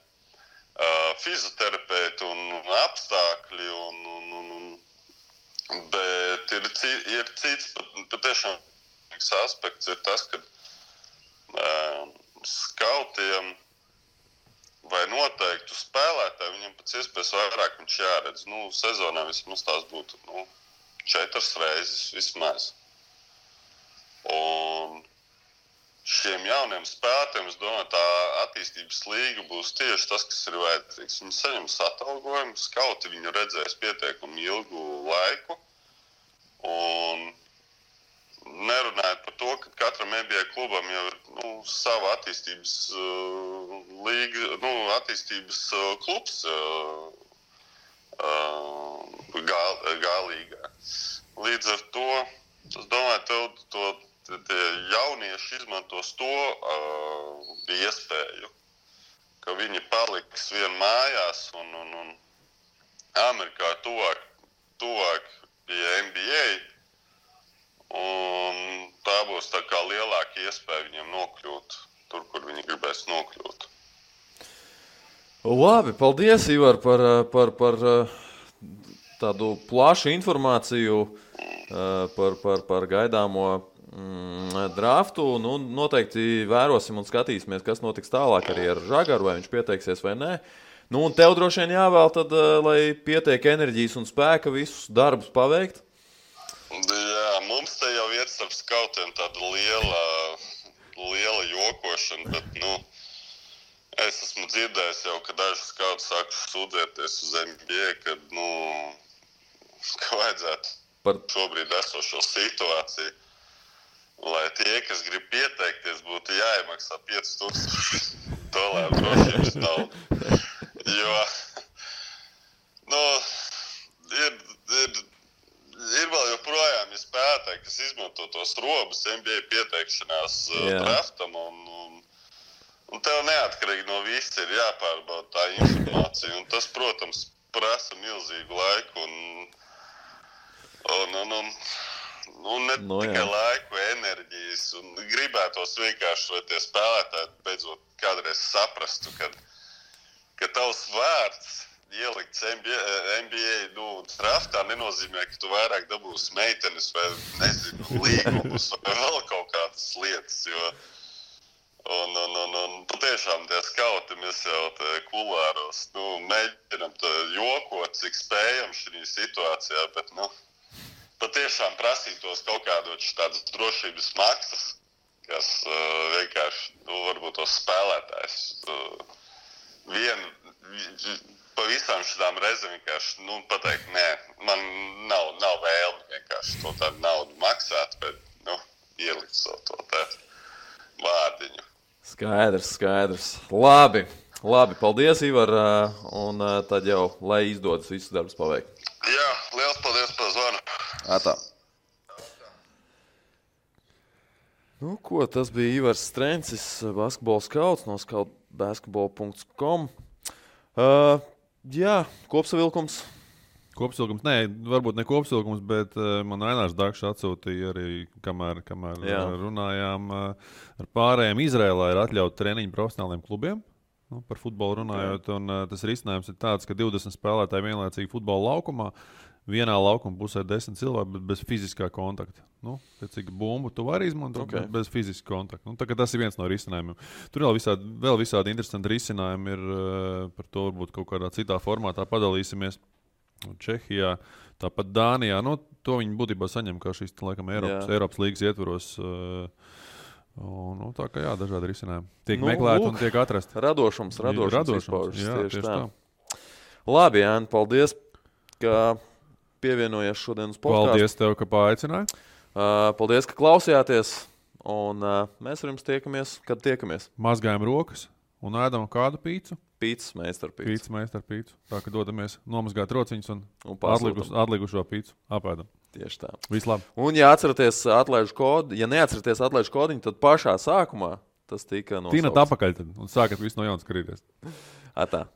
fizioterapeiti un apstākļi, bet ir cits patiešām aspekts ir tas, ka skautiem vai noteiktu spēlētāju viņam pēc iespējas vairāk viņš jāredz. Sezonā vismaz tās būtu 4 reizes vismaz. Un šiem jauniem spēlētājiem, es domāju, tā attīstības līga būs tieši tas, kas ir vajadzīgs. Viņi saņems atalgojumu, skauti viņu redzēs pietiekami ilgu laiku. Un nerunājot par to, ka katram NBA klubam jau ir sava attīstības līga, attīstības klubs G-līgā. Līdz ar to, es domāju, tie jaunieši izmantos to iespēju, ka viņi paliks vien mājās un Amerikā tuvāk pie NBA. Un tā būs tā kā lielāka iespēja viņiem nokļūt tur, kur viņi gribēs nokļūt. Labi, paldies, Ivar, par tādu plašu informāciju par gaidāmo draftu. Noteikti vērosim un skatīsimies, kas notiks tālāk arī ar Žagaru, vai viņš pieteiksies vai nē. Un tev droši vien jāvēl tad, lai pietiek enerģijas un spēka visus darbus paveikt. Jā, mums te jau ir starp skautiem tāda liela jokošana, bet, es esmu dzirdējis jau, ka daži skauti sākuši sūdzēties uz NBA, kad, ka vajadzētu šobrīd esošo situāciju, lai tie, kas grib pieteikties, būtu jāiemaksā $5,000 drošības naudu. Jo, ir vēl joprojām spēlētāji, kas izmanto tos robus NBA pieteikšanās draftam, un tev neatkarīgi no viss ir jāpārbauda tā informācija, un tas, protams, prasa milzīgu laiku, un ne tikai laiku, enerģijas, un gribētos vienkārši, lai tie spēlētāji beidzot kādreiz saprastu, ka tavs vārds ielikts NBA draftā nenozīmē, ka tu vairāk dabūsi meitenes vai, nezinu, līgumus vai vēl kaut kādas lietas, jo patiešām tie skauti mēs jau kulāros, mēģinam jokot, cik spējam šī situācijā, bet, patiešām prasītos kaut kādot tādas drošības maksas, kas vienkārši, varbūt tos spēlētājs pa visām šitām reizēm vienkārši, pateikt, nē, man nav vēlme vienkārši to tādu naudu maksāt, bet, ielikt savu to te vārdiņu. Skaidrs. Labi, paldies, Ivar, un tad jau, lai izdodas visus darbus paveikt. Jā, liels paldies par zvanu. Atā. Ko, tas bija Ivars Strencis, basketbola skauts no scoutbasketball.com. Jā, kopsavilkums. Kopsavilkums, nē, varbūt ne kopsavilkums, bet man Ainārs Dakšs atsūtīja arī, kamēr runājām ar pārējiem. Izrēlā ir atļauts treniņu profesionāliem klubiem, par futbolu runājot, un tas risinājums ir tāds, ka 20 spēlētāji vienlaicīgi futbola laukumā, vienā laukuma pusē 10 cilvēki, bet bez fiziskā kontakta. Cik bumbu tu vari izmantot, bet bez fiziskā kontakta. Tas ir viens no risinājumiem. Tur vēl visādi interesanti risinājumi ir, par to varbūt kaut kādā citā formātā padalīsimies. Čehijā, tāpat Dānijā, to viņi būtībā saņem kā šīs, laikam, Eiropas līgas ietvaros. Tā kā dažādi risinājumi. Tiek meklēti un tiek atrasti. Radošums jā, tieši tā. Labi, Jāni, paldies, ka pievienojies šodien uz podcastu. Paldies tev, ka paaicināji. Paldies, ka klausījāties, un mēs ar jums tiekamies, kad tiekamies. Mazgājam rokas un ēdam kādu pīcu. Pīcis meistarpīcu. Tā, ka dodamies nomazgāt rociņus un atlikušo pīcu apēdam. Tieši tā. Vislabāk. Un, ja neatceraties atlaižu kodiņu, tad pašā sākumā tas tika nosaukts. Tīnat apakaļ tad un sākat visu no jaunas skrīties. Atā.